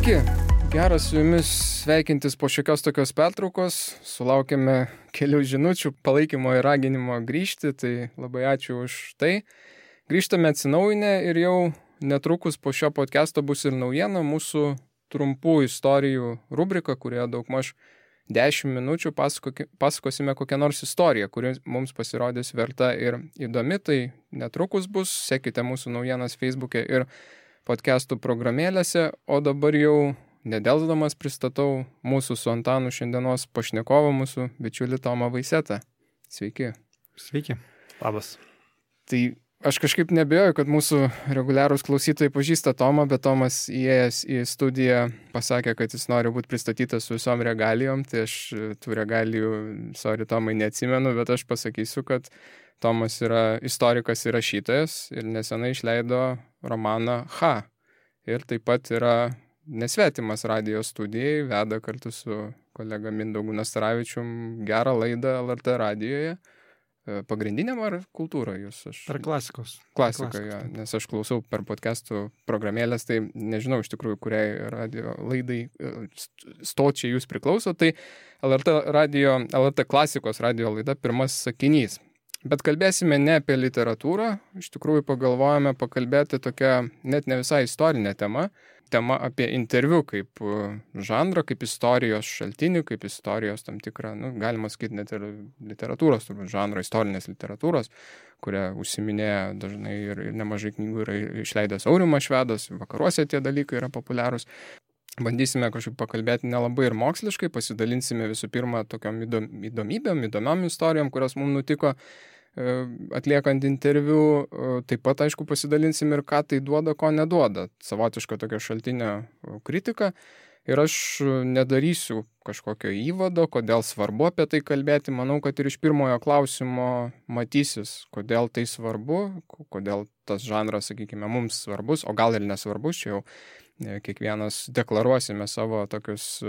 Sveiki, geras su jumis sveikintis po šiokios tokios pertraukos. Sulaukėme kelių žinučių palaikymo ir raginimo grįžti, tai labai ačiū už tai. Grįžtame atsinaujinę ir jau netrukus po šio podcast'o bus ir naujiena mūsų trumpų istorijų rubrika, kurioje daugmaž 10 minučių pasakosime kokią nors istoriją, kuri mums pasirodys verta ir įdomi. Tai netrukus bus, sekite mūsų naujienas Facebook'e ir podcastų programėlėse, o dabar jau nedelsdamas pristatau mūsų su Antanu šiandienos pašnekovą, mūsų bičiulį Tomą Vaisetą. Sveiki. Sveiki. Labas. Tai aš kažkaip nebejoju, kad mūsų reguliarūs klausytojai pažįsta Tomą, bet Tomas įėjęs į studiją pasakė, kad jis nori būti pristatytas su visom regalijom, tai aš tų regalijų, sorry Tomai, neatsimenu, bet aš pasakysiu, kad Tomas yra istorikas ir rašytojas ir nesenai išleido romaną H. Ir taip pat yra nesvetimas radijo studijai, veda kartu su kolega Mindaugu Nastaravičium gerą laidą LRT radijoje. Pagrindiniam ar kultūroje jūs? Per klasikos. Klasika, ja, nes aš klausau per podcastų programėlės, tai nežinau iš tikrųjų, kuriai radio laidai stočiai jūs priklauso, tai LRT klasikos radio laida pirmas sakinys. Bet kalbėsime ne apie literatūrą, iš tikrųjų pagalvojame pakalbėti tokią net ne visai istorinę temą apie interviu kaip žanrą, kaip istorijos šaltinį, kaip istorijos tam tikrą, galima sakyti net ir literatūros, turbūt žanro, istorinės literatūros, kurią užsiminėja dažnai ir nemažai knygų yra išleidęs Aurimas Švedas, vakaruose tie dalykai yra populiarūs. Bandysime kažkaip pakalbėti nelabai ir moksliškai, pasidalinsime visų pirma tokiom įdomiom istorijom, kurios mums nutiko atliekant interviu, taip pat, aišku, pasidalinsim ir ką tai duoda, ko neduoda. Savotiška tokia šaltinio kritika. Ir aš nedarysiu kažkokio įvado, kodėl svarbu apie tai kalbėti. Manau, kad ir iš pirmojo klausimo matysis, kodėl tai svarbu, kodėl tas žanras, sakykime, mums svarbus, o gal ir nesvarbus, čia jau kiekvienas deklaruosime savo tokius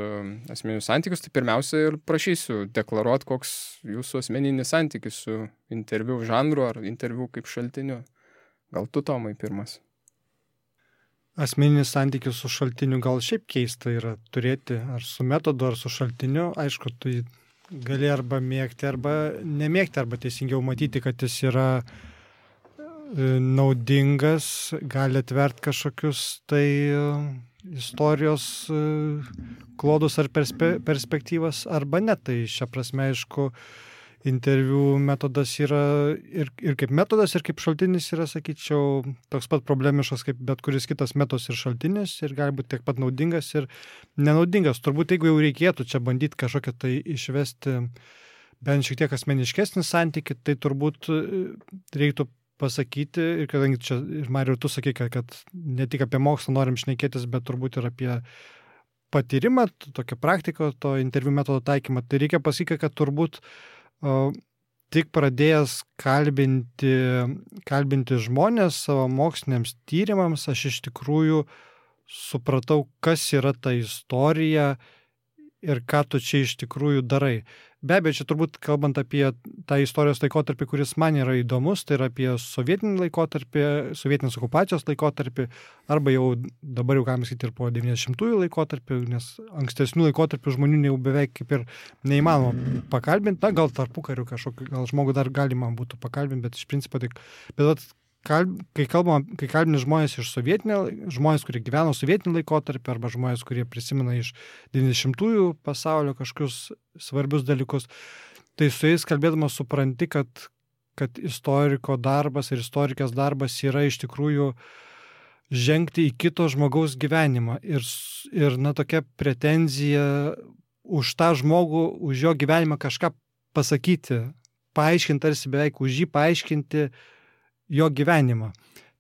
asmeninius santykius, tai pirmiausia ir prašysiu deklaruoti, koks jūsų asmeninis santykis su interviu žanru ar interviu kaip šaltiniu. Gal tu, Tomai, pirmas? Asmeninis santykis su šaltiniu gal šiaip keista yra turėti ar su metodu, ar su šaltiniu. Aišku, tu gali arba mėgti, arba nemėgti, arba teisingiau matyti, kad jis yra naudingas, gali atverti kažkokius tai istorijos klodus ar perspektyvas, arba ne. Tai šią prasme, aišku, interviu metodas yra ir kaip metodas, ir kaip šaltinis yra, sakyčiau, toks pat problemiškas kaip bet kuris kitas metodas ir šaltinis, ir gali būti tiek pat naudingas ir nenaudingas. Turbūt, jeigu jau reikėtų čia bandyti kažkokią tai išvesti bent šiek tiek asmeniškesnį santykį, tai turbūt reiktų pasakyti, ir kadangi čia, ir Mariau, tu sakai, kad ne tik apie mokslą norim šnekėtis, bet turbūt ir apie patyrimą, tokią praktiką, to interviu metodo taikymą, tai reikia pasakyti, kad turbūt tik pradėjęs kalbinti žmonės savo moksliniams tyrimams, aš iš tikrųjų supratau, kas yra ta istorija ir ką tu čia iš tikrųjų darai. Be abejo, čia turbūt kalbant apie tą istorijos laikotarpį, kuris man yra įdomus, tai yra apie sovietinį laikotarpį, sovietinės okupacijos laikotarpį, arba jau dabar jau galima sakyti ir po 90-ųjų laikotarpį, nes ankstesnių laikotarpių žmonių jau beveik kaip ir neįmanoma pakalbinti. Na, gal tarpukariu kažkokį, gal žmogų dar galima būtų pakalbinti, bet iš principo tik. Bet kai kalbini žmonės iš žmonės, kurie gyveno sovietinį laikotarpį, arba žmonės, kurie prisimena iš 90-ųjų pasaulio kažkokius svarbius dalykus, tai su jais kalbėdamas supranti, kad istoriko darbas ir istorikės darbas yra iš tikrųjų žengti į kito žmogaus gyvenimą ir tokia pretenzija už tą žmogų, už jo gyvenimą kažką pasakyti, paaiškinti, tarsi beveik už jį paaiškinti jo gyvenimą.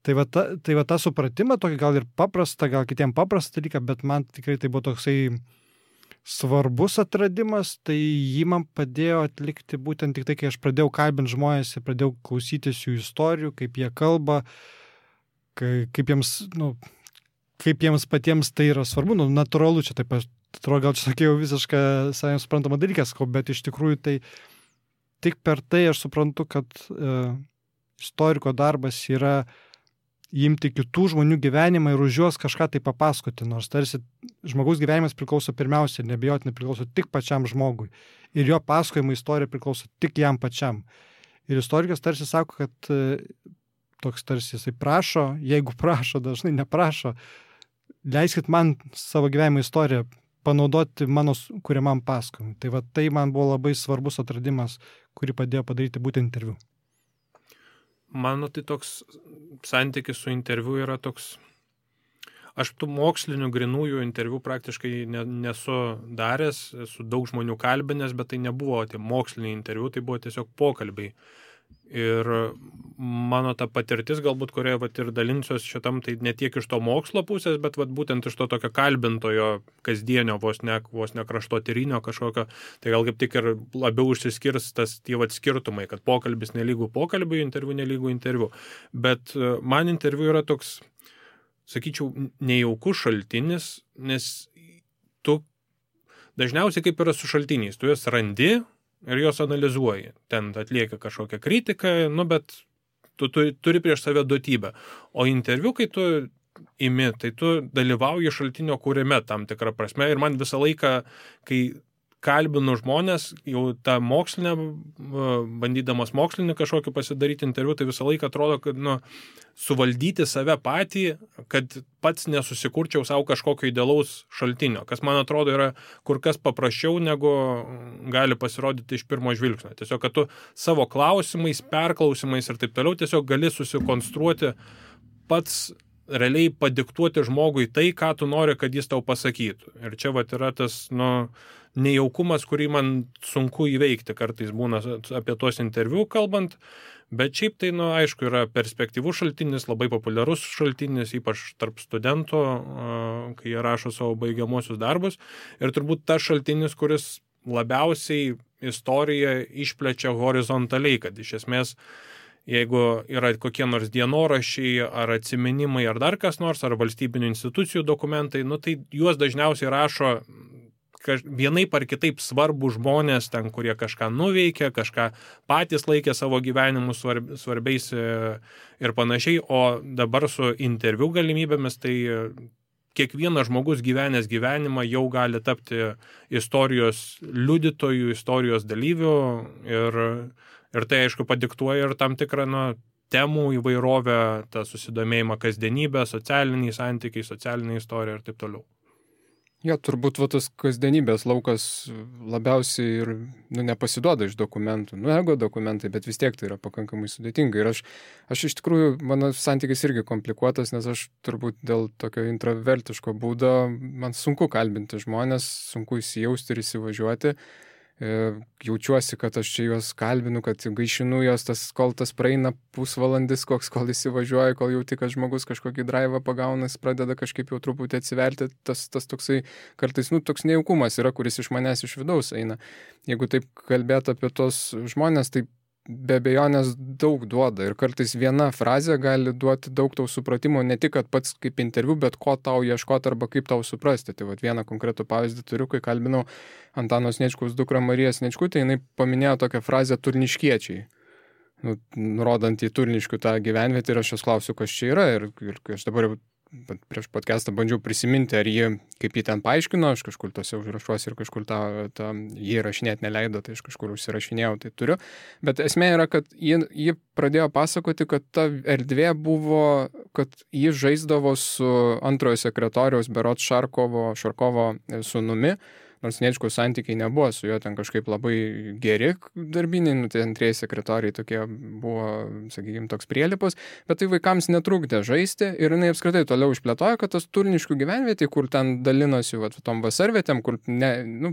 Tai va tą supratimą, tokį gal ir paprastą, gal kitiem paprastą dalyką, bet man tikrai tai buvo toksai svarbus atradimas, tai jį man padėjo atlikti būtent tik tai, kai aš pradėjau kalbinti žmonės ir pradėjau klausytis jų istorijų, kaip jie kalba, kaip jiems patiems tai yra svarbu, natūralu, čia taip, atrodo, gal čia sakiau visišką savai suprantamą dalyką, bet iš tikrųjų tai tik per tai aš suprantu, kad istoriko darbas yra imti kitų žmonių gyvenimą ir už juos kažką tai papasakoti, nors tarsi žmogaus gyvenimas priklauso pirmiausia, nebejotinai priklauso tik pačiam žmogui. Ir jo pasakojimo istorija priklauso tik jam pačiam. Ir istorikas tarsi sako, kad toks tarsi jisai prašo, jeigu prašo, dažnai neprašo, leiskit man savo gyvenimo istoriją panaudoti mano kuriamam pasakojimui. Tai va tai man buvo labai svarbus atradimas, kurį padėjo padaryti būtent interviu. Mano tai toks santykis su interviu yra toks, aš tų mokslinių grinųjų interviu praktiškai nesu daręs, esu daug žmonių kalbinęs, bet tai nebuvo tie moksliniai interviu, tai buvo tiesiog pokalbiai. Ir mano ta patirtis, galbūt, kurioje vat ir dalinsiuos šitam, tai ne tiek iš to mokslo pusės, bet vat būtent iš to tokio kalbintojo kasdienio, vos ne kraštotyrinio kažkokio, tai gal kaip tik ir labiau užsiskirs tas tie vat skirtumai, kad pokalbis nelygų pokalbiui, interviu nelygų interviu. Bet man interviu yra toks, sakyčiau, nejaukus šaltinis, nes tu dažniausiai kaip yra su šaltiniais, tu juos randi ir jos analizuoji. Ten atlieka kažkokią kritiką, bet tu turi prieš save duotybę. O interviu, kai tu imi, tai tu dalyvauji šaltinio kūrime tam tikrą prasme. Ir man visą laiką, kai kalbinu žmonės, jau tą mokslinę, bandydamas mokslinį kažkokį pasidaryti interviu, tai visą laiką atrodo, kad suvaldyti save patį, kad pats nesusikurčiau savo kažkokio idealaus šaltinio, kas man atrodo yra kur kas paprasčiau, negu gali pasirodyti iš pirmo žvilgsnio. Tiesiog, kad tu savo klausimais, perklausimais ir taip toliau tiesiog gali susikonstruoti pats realiai padiktuoti žmogui tai, ką tu nori, kad jis tau pasakytų. Ir čia vat yra tas, nejaukumas, kurį man sunku įveikti kartais būna apie tuos interviu kalbant, bet šiaip tai, aišku, yra perspektyvus šaltinis, labai populiarus šaltinis, ypač tarp studentų, kai jie rašo savo baigiamuosius darbus. Ir turbūt tas šaltinis, kuris labiausiai istoriją išplečia horizontaliai, kad iš esmės jeigu yra kokie nors dienoraščiai ar atsiminimai ar dar kas nors, ar valstybinių institucijų dokumentai, tai juos dažniausiai rašo vienaip ar kitaip svarbų žmonės ten, kurie kažką nuveikė, kažką patys laikė savo gyvenimu svarbiais ir panašiai, o dabar su interviu galimybėmis, tai kiekvienas žmogus gyvenęs gyvenimą jau gali tapti istorijos liudytojų, istorijos dalyvių ir tai, aišku, padiktuoja ir tam tikrą temų įvairovę, tą susidomėjimą kasdienybę, socialiniai santykiai, socialinė istorija ir taip toliau. Jo, turbūt tas kasdienybės laukas labiausiai ir nepasiduoda iš dokumentų. Ego dokumentai, bet vis tiek tai yra pakankamai sudėtinga. Ir aš iš tikrųjų, mano santykis irgi komplikuotas, nes aš turbūt dėl tokio intravertiško būdo, man sunku kalbinti žmonės, sunku įsijausti ir įsivažiuoti. Jaučiuosi, kad aš čia juos kalbinu, kad gaišinu juos, kol tas praeina pusvalandis, kol įsivažiuoja, kol jauti, kad žmogus kažkokį draivą pagauna, jis pradeda kažkaip jau truputį atsiverti, tas toksai kartais, toks nejaukumas yra, kuris iš manęs iš vidaus eina. Jeigu taip kalbėt apie tos žmonės, tai be abejonės daug duoda ir kartais viena frazė gali duoti daug tau supratimo, ne tik, kad pats kaip interviu, bet ko tau ieškoti arba kaip tau suprasti. Tai vieną konkretų pavyzdį turiu, kai kalbinau Antano Sniečkaus dukrą Mariją Sniečkutę, jinai paminėjo tokią frazę turniškiečiai, nurodant į Turniškių tą gyvenvietę ir aš jos klausiu, kas čia yra ir aš dabar prieš podcastą bandžiau prisiminti, ar kaip jį ten paaiškino, aš kažkur tose užrašuosi ir kažkur jį rašinėti neleido, tai aš kažkur užsirašinėjau, tai turiu. Bet esmė yra, kad jį pradėjo pasakoti, kad ta erdvė buvo, kad jį žaisdavo su antrojo sekretoriaus berods Šarkovo sūnumi, nors Sniečkaus santykiai nebuvo su juo ten kažkaip labai geri darbiniai, tai antrieji sekretoriai tokie buvo, sakykime, toks prielipus, bet tai vaikams netrukdė žaisti ir jinai apskritai toliau išplėtojo, kad tas Turniškių gyvenvietė, kur ten dalinosi tom vasarvietėm, kur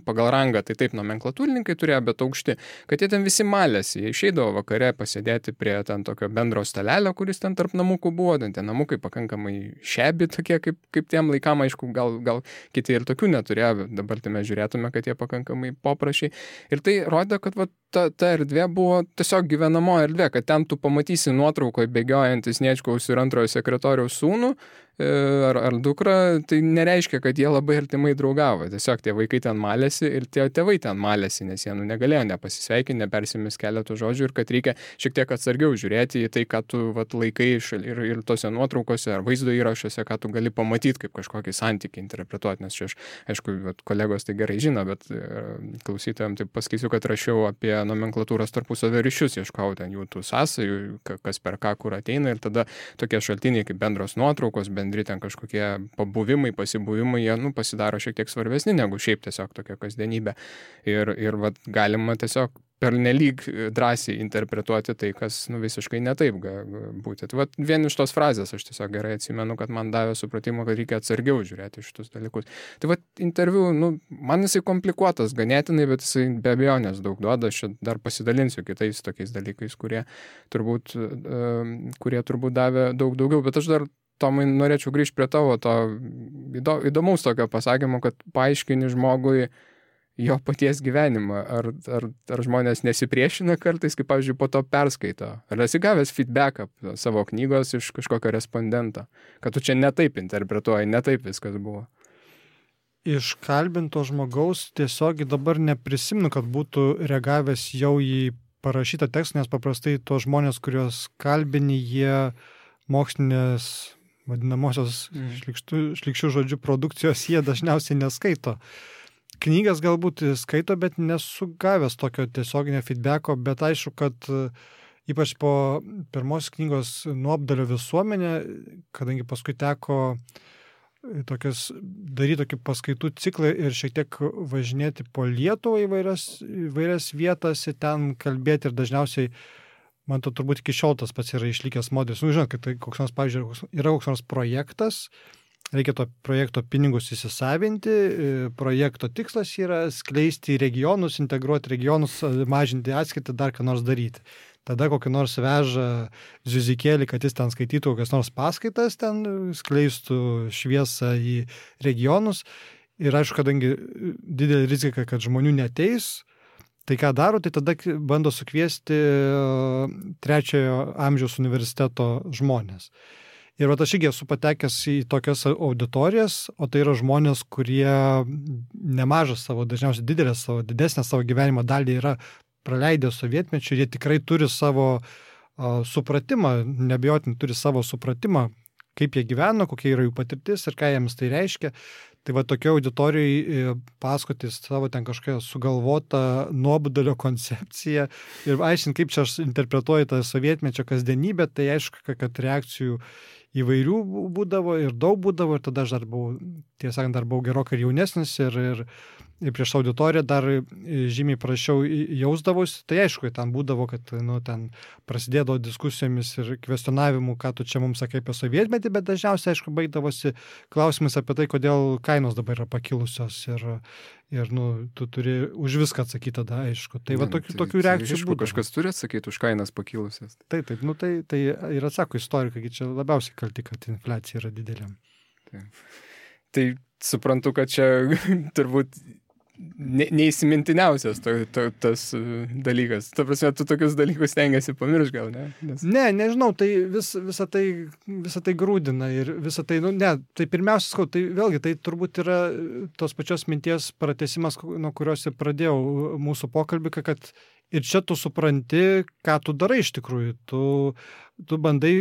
pagal rangą, tai taip nomenklatūrininkai turėjo, bet aukšti, kad jie ten visi malėsi, jie išeidavo vakare pasėdėti prie ten tokio bendro stalelio, kuris ten tarp namukų buvo, ten tie namukai pakankamai šebi tokie, kaip tiem laikam, aišku, gal kiti ir tokių neturėjo, dabar tai mes žiūrėtume, kad jie pakankamai poprašiai. Ir tai rodė, kad ta erdvė buvo tiesiog gyvenamo erdvė, kad ten tu pamatysi nuotraukoje bėgiojantys Sniečkaus ir antrojo sekretoriaus sūnų ar dukra, tai nereiškia, kad jie labai artimai draugavo. Tiesiog tie vaikai ten malėsi ir tie tėvai ten malėsi, nes jie negalėjo nepasisveikinti, nepersimis keletų žodžių ir kad reikia šiek tiek atsargiau žiūrėti į tai, ką tu laikai ir tose nuotraukose ar vaizdo įrašuose, ką tu gali pamatyti kaip kažkokį santykį interpretuoti, nes čia aš, aišku, kolegos tai gerai žino, bet klausytojams tai pasakysiu, kad rašiau apie nomenklatūros tarpusavio ryšius, ieškau ten jų tų sąsajų, kas per ką kur ateina ir tada tokie šaltiniai kaip bendros nuotraukos, bendri ten kažkokie pabuvimai, pasibuvimai, jie pasidaro šiek tiek svarbesni negu šiaip tiesiog tokia kasdienybė. Ir vat, galima tiesiog pernelyg drąsiai interpretuoti tai, kas visiškai netaip būti. Tai vat, vien iš tos frazės aš tiesiog gerai atsimenu, kad man davė supratimo, kad reikia atsargiau žiūrėti šitus dalykus. Tai vat, interviu, man jisai komplikuotas ganėtinai, bet jisai be abejonės daug duoda. Aš dar pasidalinsiu kitais tokiais dalykais, kurie turbūt davė daug daugiau, bet aš dar Tomai, norėčiau grįžti prie tavo to įdomaus tokio pasakymo, kad paaiškini žmogui jo paties gyvenimą. Ar žmonės nesipriešina kartais, kaip, pavyzdžiui, po to perskaito? Ar esi gavęs feedbacką savo knygos iš kažkokio respondento? Kad tu čia netaip interpretuoji, netaip viskas buvo? Iš kalbinto žmogaus tiesiog dabar neprisimenu, kad būtų reagavęs jau į parašytą tekstą, nes paprastai tos žmonės, kuriuos kalbini, jie mokslinės vadinamosios šlykščių žodžių produkcijos jie dažniausiai neskaito. Knygas galbūt skaito, bet nesu gavęs tokio tiesioginio feedbacko, bet aišku, kad ypač po pirmos knygos Nuobodulio visuomenė, kadangi paskui teko daryti tokį paskaitų ciklą ir šiek tiek važinėti po Lietuvą įvairias vietas ir ten kalbėti ir dažniausiai man to turbūt iki šiol tas pats yra išlikęs modelis. Žinot, kad tai koks nors, pavyzdžiui, yra koks nors projektas, reikia to projekto pinigus įsisavinti, projekto tikslas yra skleisti regionus, integruoti regionus, mažinti atskirtį, dar ką nors daryti. Tada kokį nors veža ziuzikėlį, kad jis ten skaitytų kokias nors paskaitas, ten skleistų šviesą į regionus. Ir aišku, kadangi didelė rizika, kad žmonių neteis, tai ką daro, tai tada bando sukviesti trečiojo amžiaus universiteto žmonės. Ir aš irgi esu patekęs į tokias auditorijas, o tai yra žmonės, kurie nemažą savo, dažniausiai didesnę savo gyvenimo dalį yra praleidę sovietmečiu, jie tikrai turi savo supratimą, neabejotinai turi savo supratimą, kaip jie gyveno, kokia yra jų patirtis ir ką jiems tai reiškia. Tai va tokia auditorijai pasakoti savo ten kažkokią sugalvotą nuobodulio koncepciją ir aiškinti, kaip čia aš interpretuoju tą sovietmečio kasdienybę, tai aišku, kad reakcijų įvairių būdavo ir daug būdavo ir tada aš dar buvau, tiesą sakant, gerokai jaunesnis ir prieš auditoriją dar žymiai prašiau jausdavosi, tai aišku, ten būdavo, kad ten prasidėdavo diskusijomis ir kvestionavimu, ką tu čia mums sakai apie sovietmetį, bet dažniausiai, aišku, baigdavosi klausimas apie tai, kodėl kainos dabar yra pakilusios ir tu turi už viską atsakyti tada, aišku. Tai va tokių reakcijų būdavo. Kažkas turi atsakyti už kainas pakilusias. Taip, tai ir atsako istorikai, čia labiausiai kalti, kad infliacija yra didelė. Tai suprantu, kad čia turbūt neįsimintiniausias tas dalykas. Ta prasme, tu tokius dalykus stengiasi pamiršti, gal, ne? Nežinau, tai visą tai grūdina ir visą tai, tai pirmiausia, tai vėlgi, tai turbūt yra tos pačios minties pratęsimas, nuo kurios ir pradėjau mūsų pokalbį, kad ir čia tu supranti, ką tu darai iš tikrųjų. Tu bandai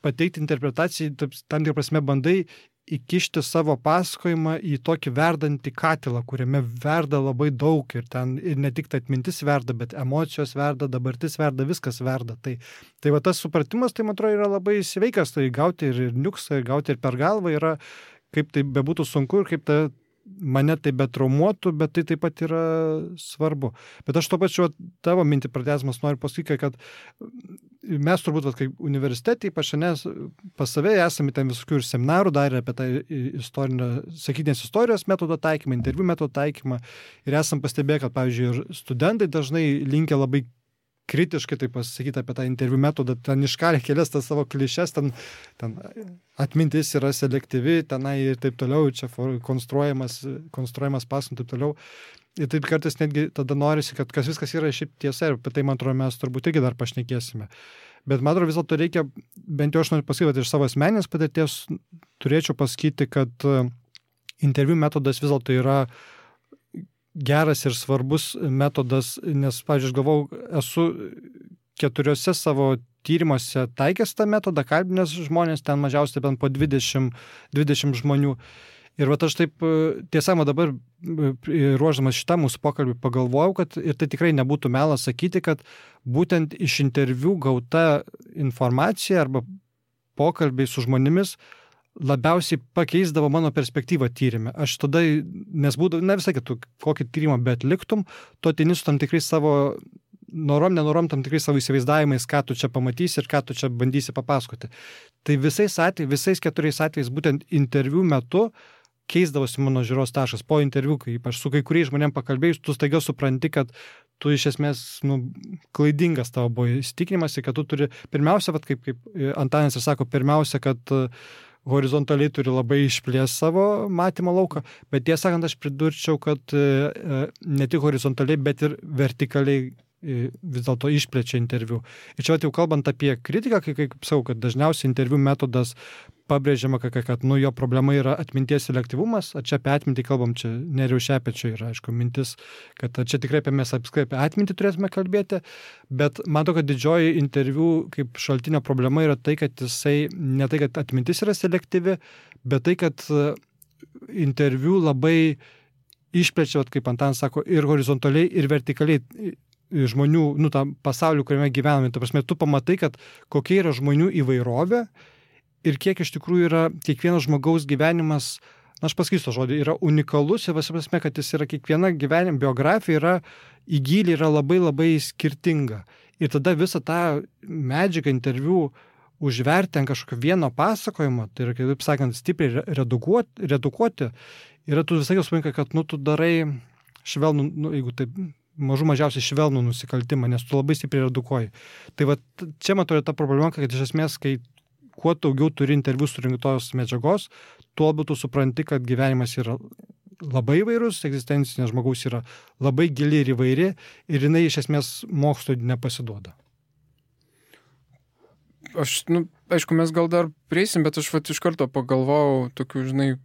pateikti interpretaciją, tam tikrą prasme bandai įkišti savo pasakojimą į tokį verdantį katilą, kuriame verda labai daug ir ten ir ne tik atmintis verda, bet emocijos verda, dabartis verda, viskas verda. Tai va tas supratimas, tai man atrodo, yra labai sveikas, tai gauti ir niuksą, ir gauti ir per galvą yra, kaip tai bebūtų sunku ir kaip mane tai betraumuotų, bet tai taip pat yra svarbu. Bet aš to pačiu tavo mintį pratęsdamas noriu pasakyti, kad mes turbūt, kaip universitetai, pas save esame ten visokių ir seminarų darę apie tą sakytinės istorijos metodo taikymą, interviu metodo taikymą ir esam pastebėję, kad, pavyzdžiui, ir studentai dažnai linkia labai kritiškai tai pasakyti apie tą interviu metodą, ten iškalė kelias tas savo klišes, ten atmintis yra selektyvi, tenai ir taip toliau, čia konstruojamas pasakojant taip toliau. Ir taip kartais netgi tada norisi, kad viskas yra šiaip tiesa ir apie tai, man atrodo, mes turbūt irgi dar pašnekėsime. Bet man atrodo, vis dėlto reikia, bent jau aš noriu pasakyti, iš savo asmeninės patirties turėčiau pasakyti, kad interviu metodas vis dėlto yra geras ir svarbus metodas, nes, pavyzdžiui, aš galvau, esu 4 savo tyrimuose taikęs tą metodą, kalbinęs žmonės, ten mažiausiai bent po 20 žmonių. Ir vat aš taip, tiesa, dabar ruoždamas šitą mūsų pokalbį pagalvojau, kad ir tai tikrai nebūtų melas sakyti, kad būtent iš interviu gauta informacija arba pokalbiai su žmonėmis labiausiai pakeisdavo mano perspektyvą tyrime. Aš tada, nes būdavo, ne visai kitų, kokį tyrimą bet liktum, tu ateini su tam tikrai savo nenorom tam tikrai savo įsivaizdavimais, ką tu čia pamatysi ir ką tu čia bandysi papasakoti. Tai visais 4 atvejais būtent interviu metu keisdavosi mano žiūros taškas. Po interviu, kai aš su kai kuriais žmonėm pakalbėjus, tu staiga supranti, kad tu iš esmės klaidingas tavo buvo įsitikinimas ir kad tu turi, pirmiausia, kaip Antanas ir sako, pirmiausia, kad horizontaliai turi labai išplės savo matymo lauką, bet tiesą sakant, aš pridurčiau, kad ne tik horizontaliai, bet ir vertikaliai vis dėlto išplečia interviu. Ir čia jau kalbant apie kritiką, kaip sakau, kad dažniausiai interviu metodas pabrėžiama, kad jo problema yra atminties selektyvumas, o čia apie atmintį kalbam, čia Nerijaus Šepečio yra, aišku, mintis, kad čia tikrai mes apskritai apie atmintį turėtume kalbėti, bet matau, kad didžioji interviu kaip šaltinio problema yra tai, kad jisai, ne tai, kad atmintis yra selektyvi, bet tai, kad interviu labai išplečia, kaip Antanas sako, ir horizontaliai, ir vertikaliai žmonių, tą pasaulį, kuriame gyvename. Ta prasme, tu pamatai, kad kokia yra žmonių įvairovė ir kiek iš tikrųjų yra kiekvienas žmogaus gyvenimas, aš pasakysiu tą žodį, yra unikalus ir visi prasme, kad jis yra kiekviena gyvenimo biografija yra į gylį yra labai labai skirtinga. Ir tada visą tą medžiagą interviu užverti ant kažkokio vieno pasakojimo, tai yra, kaip sakant, stipriai redukuoti, yra tu visai suvoki, kad tu darai švelnų, jeigu taip mažiausiai švelnų nusikaltimą, nes tu labai stipriai redukuoji. Tai va, čia man atrodo ta problema, kad iš esmės, kai kuo daugiau turi interviu surinktos medžiagos, tuo labiau tu supranti, kad gyvenimas yra labai įvairus, egzistencinė žmogaus yra labai gili ir įvairi ir jinai iš esmės mokslui nepasiduoda. Aišku, mes gal dar prieisim, bet aš iš karto pagalvojau tokių,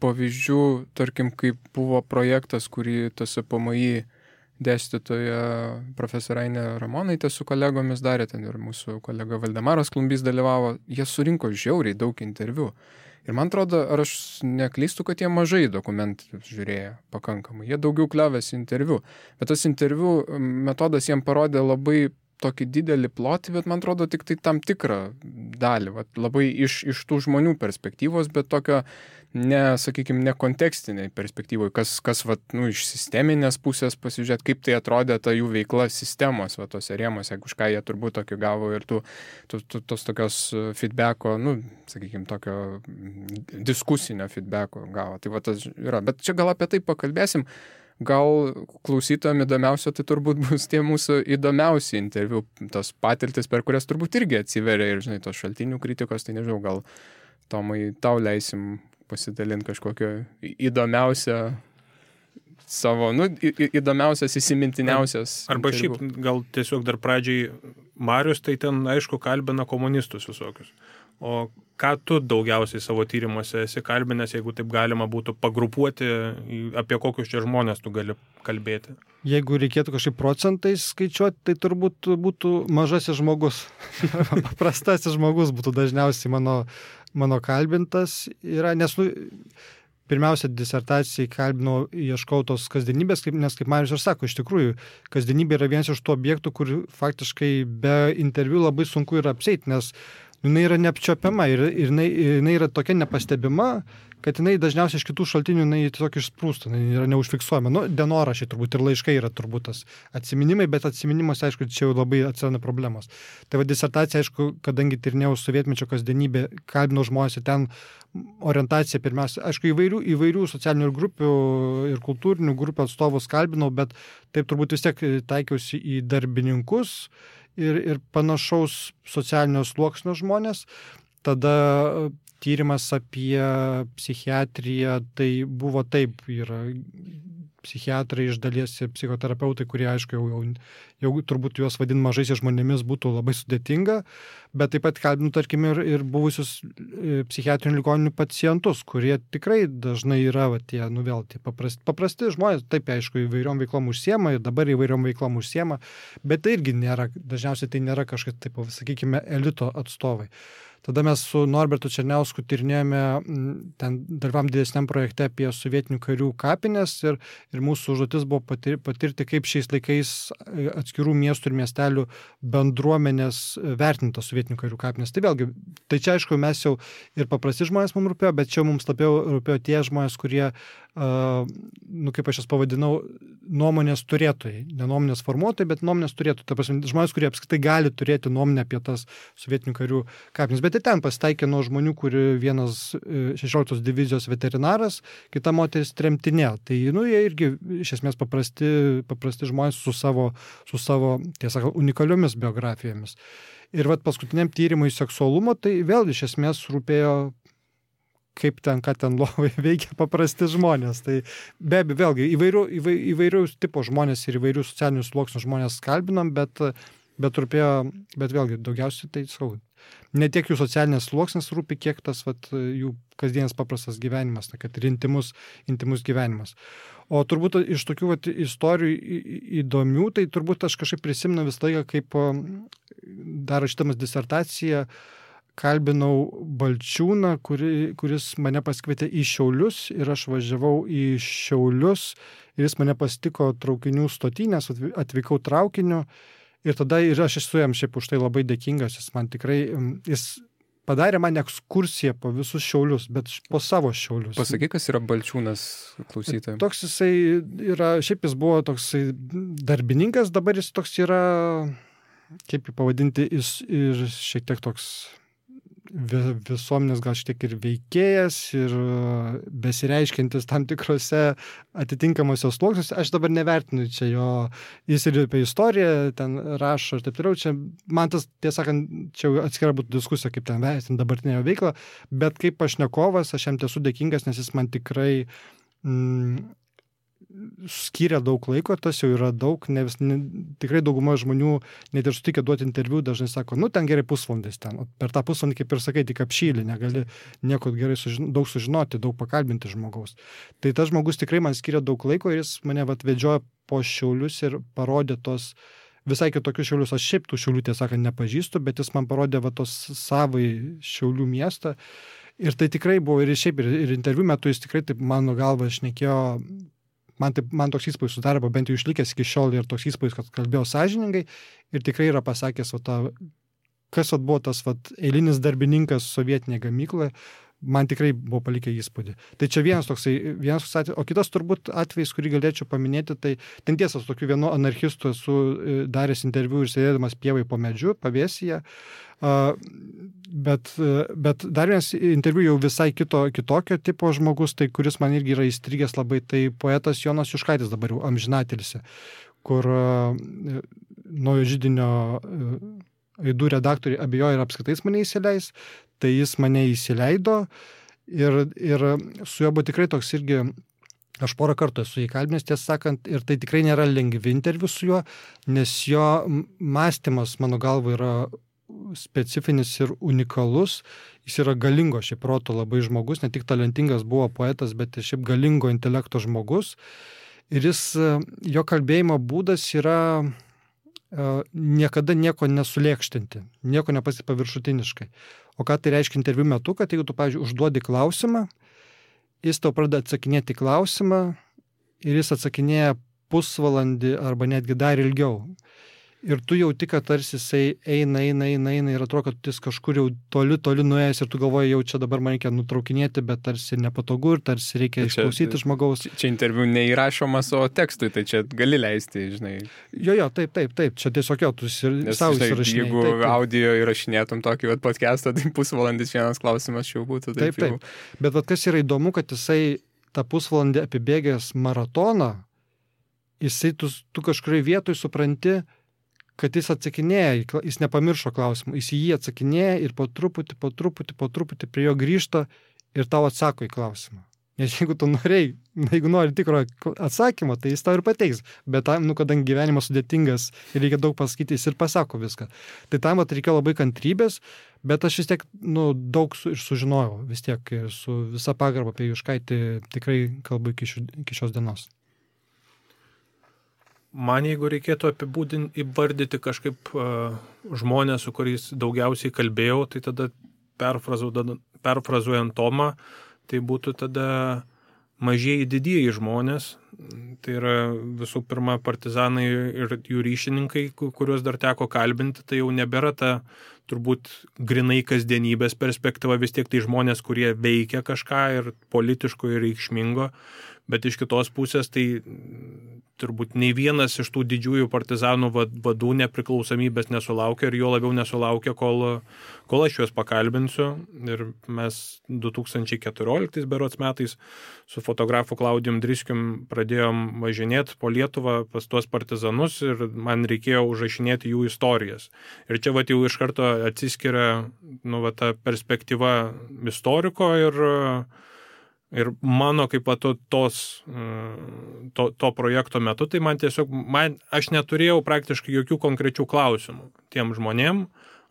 pavyzdžių, tarkim, kaip buvo projektas, kurį TSPMI dėstytoja profesorė Ainė Ramonaitė su kolegomis darė, ten ir mūsų kolega Valdemaras Klumbys dalyvavo, jie surinko žiauriai daug interviu. Ir man atrodo, ar aš neklystu, kad jie mažai dokumentų žiūrėjo pakankamai, jie daugiau kliovėsi interviu. Bet tas interviu metodas jiem parodė labai tokį didelį plotį, bet man atrodo tik tai tam tikrą dalį, labai iš tų žmonių perspektyvos, bet tokio ne kontekstiniai perspektyvoje, kas iš sisteminės pusės pasižiūrėti, kaip tai atrodė ta jų veikla sistemos, tose rėmose, už ką jie turbūt tokio gavo ir tos tokios feedbacko, tokio diskusinio feedbacko gavo. Tai tas yra. Bet čia gal apie tai pakalbėsim. Gal klausytojams įdomiausia, tai turbūt bus tie mūsų įdomiausi interviu, tos patirtis, per kurias turbūt irgi atsiveria ir, tos šaltinių kritikos, tai nežinau, gal Tomai, tau leisim pasidalinti kažkokio įdomiausią savo, įdomiausias, įsimintiniausias. Arba interviu. Šiaip gal tiesiog dar pradžiai Marius, tai ten, aišku, kalbina komunistus visokius. O ką tu daugiausiai savo tyrimuose esi kalbinęs, jeigu taip galima būtų pagrupuoti, apie kokius čia žmonės tu gali kalbėti? Jeigu reikėtų kažkaip procentais skaičiuoti, tai turbūt būtų mažasis žmogus. Paprastasis žmogus būtų dažniausiai mano kalbintas. Nes, pirmiausia, disertacijai kalbinau, ieškau tos kasdienybės, nes kaip Marius ir sako, iš tikrųjų, kasdienybė yra vienas iš tų objektų, kur faktiškai be interviu labai sunku yra apsieiti, nes jinai yra neapčiopiama ir jinai yra tokia nepastebima, kad jinai dažniausiai iš kitų šaltinių jinai tiesiog išsprūsta, jinai yra neužfiksuojama. Dienoraščiai turbūt ir laiškai yra turbūt tas atsiminimai, bet atsiminimuose, aišku, čia jau labai atsiranda problemos. Tai disertacija, aišku, kadangi tyrinėjau sovietmečio kasdienybę, kalbinau žmonės ir ten orientacija pirmiausia, aišku, įvairių socialinių grupių ir kultūrinių grupių atstovus kalbinau, bet taip turbūt vis tiek taikiausi į darbininkus ir panašaus socialinio sluoksnio žmonės. Tada tyrimas apie psichiatriją, tai buvo taip, yra psichiatrai iš dalies ir psichoterapeutai, kurie, aišku, jau turbūt juos vadin mažaisiais žmonėmis būtų labai sudėtinga, bet taip pat kalbinu, tarkim, ir buvusius psichiatrinių ligoninių pacientus, kurie tikrai dažnai yra tie paprasti žmonės, taip, aišku, įvairiom veiklom užsiema ir dabar įvairiom veiklom užsiema, bet tai irgi dažniausiai tai nėra kažkas, taip, sakykime, elito atstovai. Tada mes su Norbertu Černiausku tyrinėjome, ten dalyvavom didesniam projekte apie sovietinių karių kapines ir mūsų užduotis buvo patirti, kaip šiais laikais atskirų miestų ir miestelių bendruomenės vertinta sovietinių karių kapines. Tai vėlgi, tai čia aišku, mes jau ir paprasti žmonės mums rūpėjo, bet čia mums labiau rūpėjo tie žmonės, kurie, kaip aš jas pavadinau, nuomonės turėtojai. Ne nuomonės formuotojai, bet nuomonės turėtojai. Ta prasme, žmonės, kurie apskritai gali turėti nuomonę apie tas sovietinių karių kapines. Bet ir ten pasitaikė nuo žmonių, kuri vienas 16 divizijos veterinaras, kita moteris tremtinė. Tai, jie irgi iš esmės paprasti žmonės su savo tiesą, unikaliomis biografijomis. Ir paskutiniam tyrimui seksualumo, tai vėl iš esmės rūpėjo kaip ten, ką ten lovai veikia paprasti žmonės. Tai be abejo, vėlgi, įvairių tipo žmonės ir įvairių socialinių sluoksnių žmonės kalbinam, bet vėlgi, daugiausiai tai sakau, ne tiek jų socialinės sluoksnis rūpi, kiek tas jų kasdienis paprastas gyvenimas, kad ir intimus gyvenimas. O turbūt iš tokių istorijų įdomių, tai turbūt aš kažkaip prisimenu visą laiką, kaip dar rašydamas disertaciją, kalbinau Balčiūną, kuris mane pasikvietė į Šiaulius ir aš važiavau į Šiaulius ir jis mane pasitiko traukinių stotynes, atvykau traukiniu ir tada ir aš esu jam šiaip už tai labai dėkingas, jis padarė man ekskursiją po visus Šiaulius, bet po savo Šiaulius. Pasakyk, kas yra Balčiūnas klausytojams. Toks jisai yra, šiaip jis buvo toksai darbininkas, dabar jis toks yra, kaip jį pavadinti, ir šiek tiek toks visuomenės gal šiek tiek ir veikėjas ir besireiškiantis tam tikrose atitinkamose sluoksniuose. Aš dabar nevertinu čia jo, jis ir apie istoriją ten rašo ir taip toliau. Čia man tas, tiesą sakant, čia atskira būtų diskusija, kaip ten vertinti dabartinę jo veiklą, bet kaip pašnekovas aš jam esu dėkingas, nes jis man tikrai skyrė daug laiko, tas jau yra daug, tikrai dauguma žmonių net ir sutikę duoti interviu, dažnai sako, ten gerai pusvalandis ten, per tą pusvalandį, kaip ir sakai, tik apšylį, negali nieko gerai daug sužinoti, daug pakalbinti žmogaus. Tai tas žmogus tikrai man skyrė daug laiko ir jis mane vedžiojo po Šiaulius ir parodė tos visai kitokius Šiaulius. Aš šiaip tų Šiaulių, tiesą sakant, nepažįstu, bet jis man parodė tos savai Šiaulių miestą. Ir tai tikrai buvo ir šiaip, ir interviu metu jis tikrai, taip mano galva, šnekėjo. Man toks įspūdis sudarė, bent jau išlikęs iki šiol ir toks įspūdis, kad kalbėjo sąžiningai ir tikrai yra pasakęs, kas buvo tas eilinis darbininkas sovietinėje gamykloje, man tikrai buvo palikę įspūdį. Tai čia vienas atvejis, o kitas turbūt atvejis, kurį galėčiau paminėti, tai ten tiesa, su tokiu vienu anarchistu esu daręs interviu ir sėdėdamas pievai po medžiu, pavėsyje. Bet dar vienas interviu jau visai kitokio tipo žmogus, tai kuris man irgi yra įstrigęs labai, tai poetas Jonas Juškaitis, dabar jau amžinatilsį, kur Naujo židinio aidų redaktoriai abejoja ir apskritai mane įsileis, tai jis mane įsileido ir su juo buvo tikrai toks irgi, aš porą kartų esu įkalbinęs, tiesą sakant, ir tai tikrai nėra lengvi interviu su juo, nes jo mąstymas, mano galva, yra specifinis ir unikalus, jis yra galingo šiaip proto labai žmogus, ne tik talentingas buvo poetas, bet ir šiaip galingo intelekto žmogus, ir jo kalbėjimo būdas yra niekada nieko nesulėkštinti, nieko nepasiekti paviršutiniškai. O ką tai reiškia interviu metu, kad jeigu tu, pavyzdžiui, užduodi klausimą, jis tau pradeda atsakinėti klausimą ir jis atsakinėja pusvalandį arba netgi dar ilgiau. Ir tu jauti, kad tarsi jisai eina ir atrodo, kad jis kažkur jau toli nuėjęs ir tu galvoji, jau čia dabar man reikia nutraukinėti, bet tarsi nepatogu ir tarsi reikia išklausyti žmogaus. Čia interviu neįrašomas, o tekstui, tai čia gali leisti, žinai. Jo, taip, čia tiesiog jau tu savo įsirašinėjai. Jeigu audio įrašinėtum tokį pusvalandį, tai pusvalandis vienas klausimas jau būtų. Taip. Bet kas yra įdomu, kad jisai tą pusvalandį apibėgęs maratoną, jisai tu kažkurioje vietoje supranti, kad jis atsakinėja, jis nepamiršo klausimų, jis į jį atsakinėja ir po truputį prie jo grįžta ir tau atsako į klausimą. Nes jeigu tu jeigu nori tikro atsakymo, tai jis tau ir pateiks. Bet tam, kadangi gyvenimas sudėtingas ir reikia daug pasakyti, jis ir pasako viską. Tai tam reikėjo labai kantrybės, bet aš vis tiek daug ir sužinojau. Vis tiek su visa pagarba apie Juškaitį tikrai kalbu iki šios dienos. Man, jeigu reikėtų įvardyti kažkaip žmonės, su kuriais daugiausiai kalbėjau, tai tada perfrazuojant Tomą, tai būtų tada mažieji didieji žmonės. Tai yra visų pirma partizanai ir jų ryšininkai, kuriuos dar teko kalbinti. Tai jau nebėra ta turbūt grinai kasdienybės perspektyva, vis tiek tai žmonės, kurie veikia kažką ir politiško ir reikšmingo. Bet iš kitos pusės tai turbūt nei vienas iš tų didžiųjų partizanų vadų nepriklausomybės nesulaukė ir jo labiau nesulaukė, kol aš juos pakalbinsiu. Ir mes 2014 berods metais su fotografu Klaudijum Driskium pradėjom važinėti po Lietuvą pas tuos partizanus ir man reikėjo užrašinėti jų istorijas. Ir čia jau iš karto atsiskiria ta perspektyva istoriko ir mano kaip to projekto metu, tai aš neturėjau praktiškai jokių konkrečių klausimų tiem žmonėm,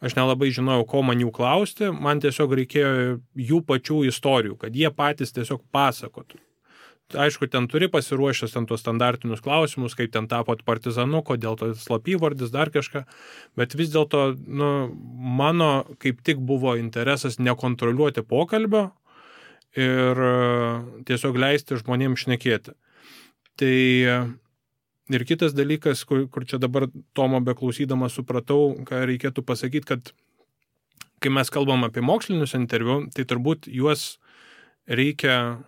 aš nelabai žinojau, ko man jų klausti, man tiesiog reikėjo jų pačių istorijų, kad jie patys tiesiog pasakotų. Aišku, ten turi pasiruošęs tuos standartinius klausimus, kaip ten tapot partizanu, kodėl to slapyvardis, dar kažką, bet vis dėlto mano kaip tik buvo interesas nekontroliuoti pokalbio, ir tiesiog leisti žmonėms šnekėti. Tai ir kitas dalykas, kur čia dabar Tomo beklausydamas supratau, ką reikėtų pasakyti, kad kai mes kalbam apie mokslinius interviu, tai turbūt juos reikia,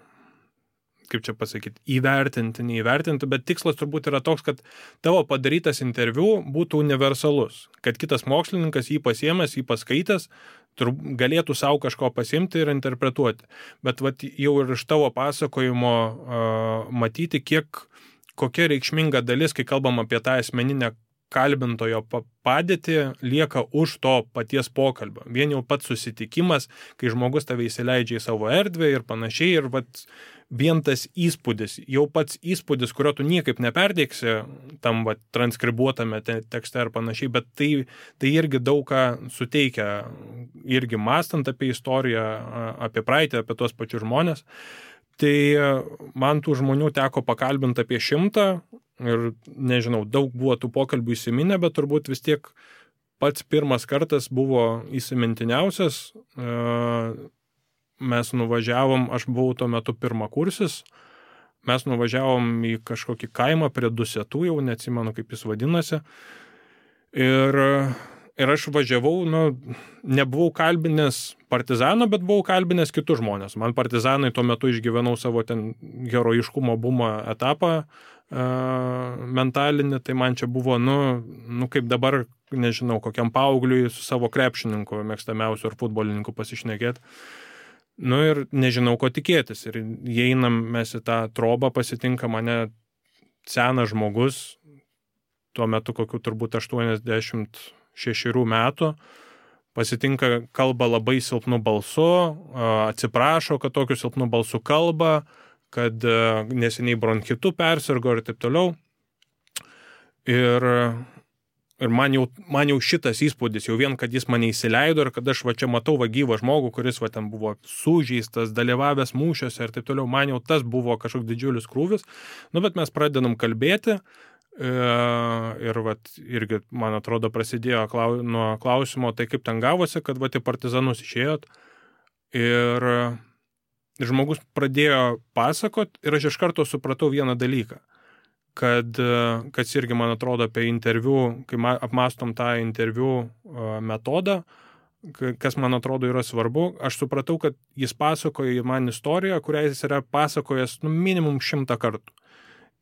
kaip čia pasakyti, neįvertinti, bet tikslas turbūt yra toks, kad tavo padarytas interviu būtų universalus, kad kitas mokslininkas jį pasiėmęs, jį paskaitęs, galėtų savo kažko pasimti ir interpretuoti. Bet jau ir iš tavo pasakojimo matyti, kokia reikšminga dalis, kai kalbam apie tą asmeninę kalbintojo padėtį, lieka už to paties pokalbio. Vien jau pats susitikimas, kai žmogus tave įsileidžia į savo erdvę ir panašiai, ir vien tas įspūdis, jau pats įspūdis, kurio tu niekaip neperteiksi tam transkribuotame tekste ir panašiai, bet tai irgi daug ką suteikia, irgi mąstant apie istoriją, apie praeitį, apie tuos pačius žmonės. Tai man tų žmonių teko pakalbinti apie 100 ir nežinau, daug buvo tų pokalbių įsiminę, bet turbūt vis tiek pats pirmas kartas buvo įsimintiniausias. Mes nuvažiavom, aš buvau tuo metu pirmakursis, mes nuvažiavom į kažkokį kaimą prie Dusetų, jau neatsimenu, kaip jis vadinasi. Ir aš važiavau, nebuvau kalbinęs partizano, bet buvau kalbinęs kitus žmonės. Man partizanai tuo metu išgyvenau savo ten herojiškumo bumo etapą mentalinį, tai man čia buvo, kaip dabar, nežinau, kokiam paaugliui su savo krepšininku mėgstamiausiu ar futbolininku pasišnekėti. Ir nežinau, ko tikėtis. Ir įeinam mes į tą trobą, pasitinka mane senas žmogus, tuo metu kokiu turbūt 86 metų, pasitinka, kalba labai silpnu balsu, atsiprašo, kad tokiu silpnu balsu kalba, kad neseniai bronchitu persirgo ir taip toliau. Ir man jau šitas įspūdis, jau vien, kad jis mane įsileido ir kad aš čia matau gyvą žmogų, kuris ten buvo sužeistas, dalyvavęs mūšiuose ir taip toliau, man jau tas buvo kažkoks didžiulis krūvis. Bet mes pradedam kalbėti ir irgi, man atrodo, prasidėjo nuo klausimo, tai kaip ten gavosi, kad į partizanus išėjot. Ir žmogus pradėjo pasakot ir aš iš karto supratau vieną dalyką. Kas irgi, man atrodo, apie interviu, kai apmastom tą interviu metodą, kas, man atrodo, yra svarbu, aš supratau, kad jis pasakoja man istoriją, kurią jis yra pasakojęs minimum 100 kartų.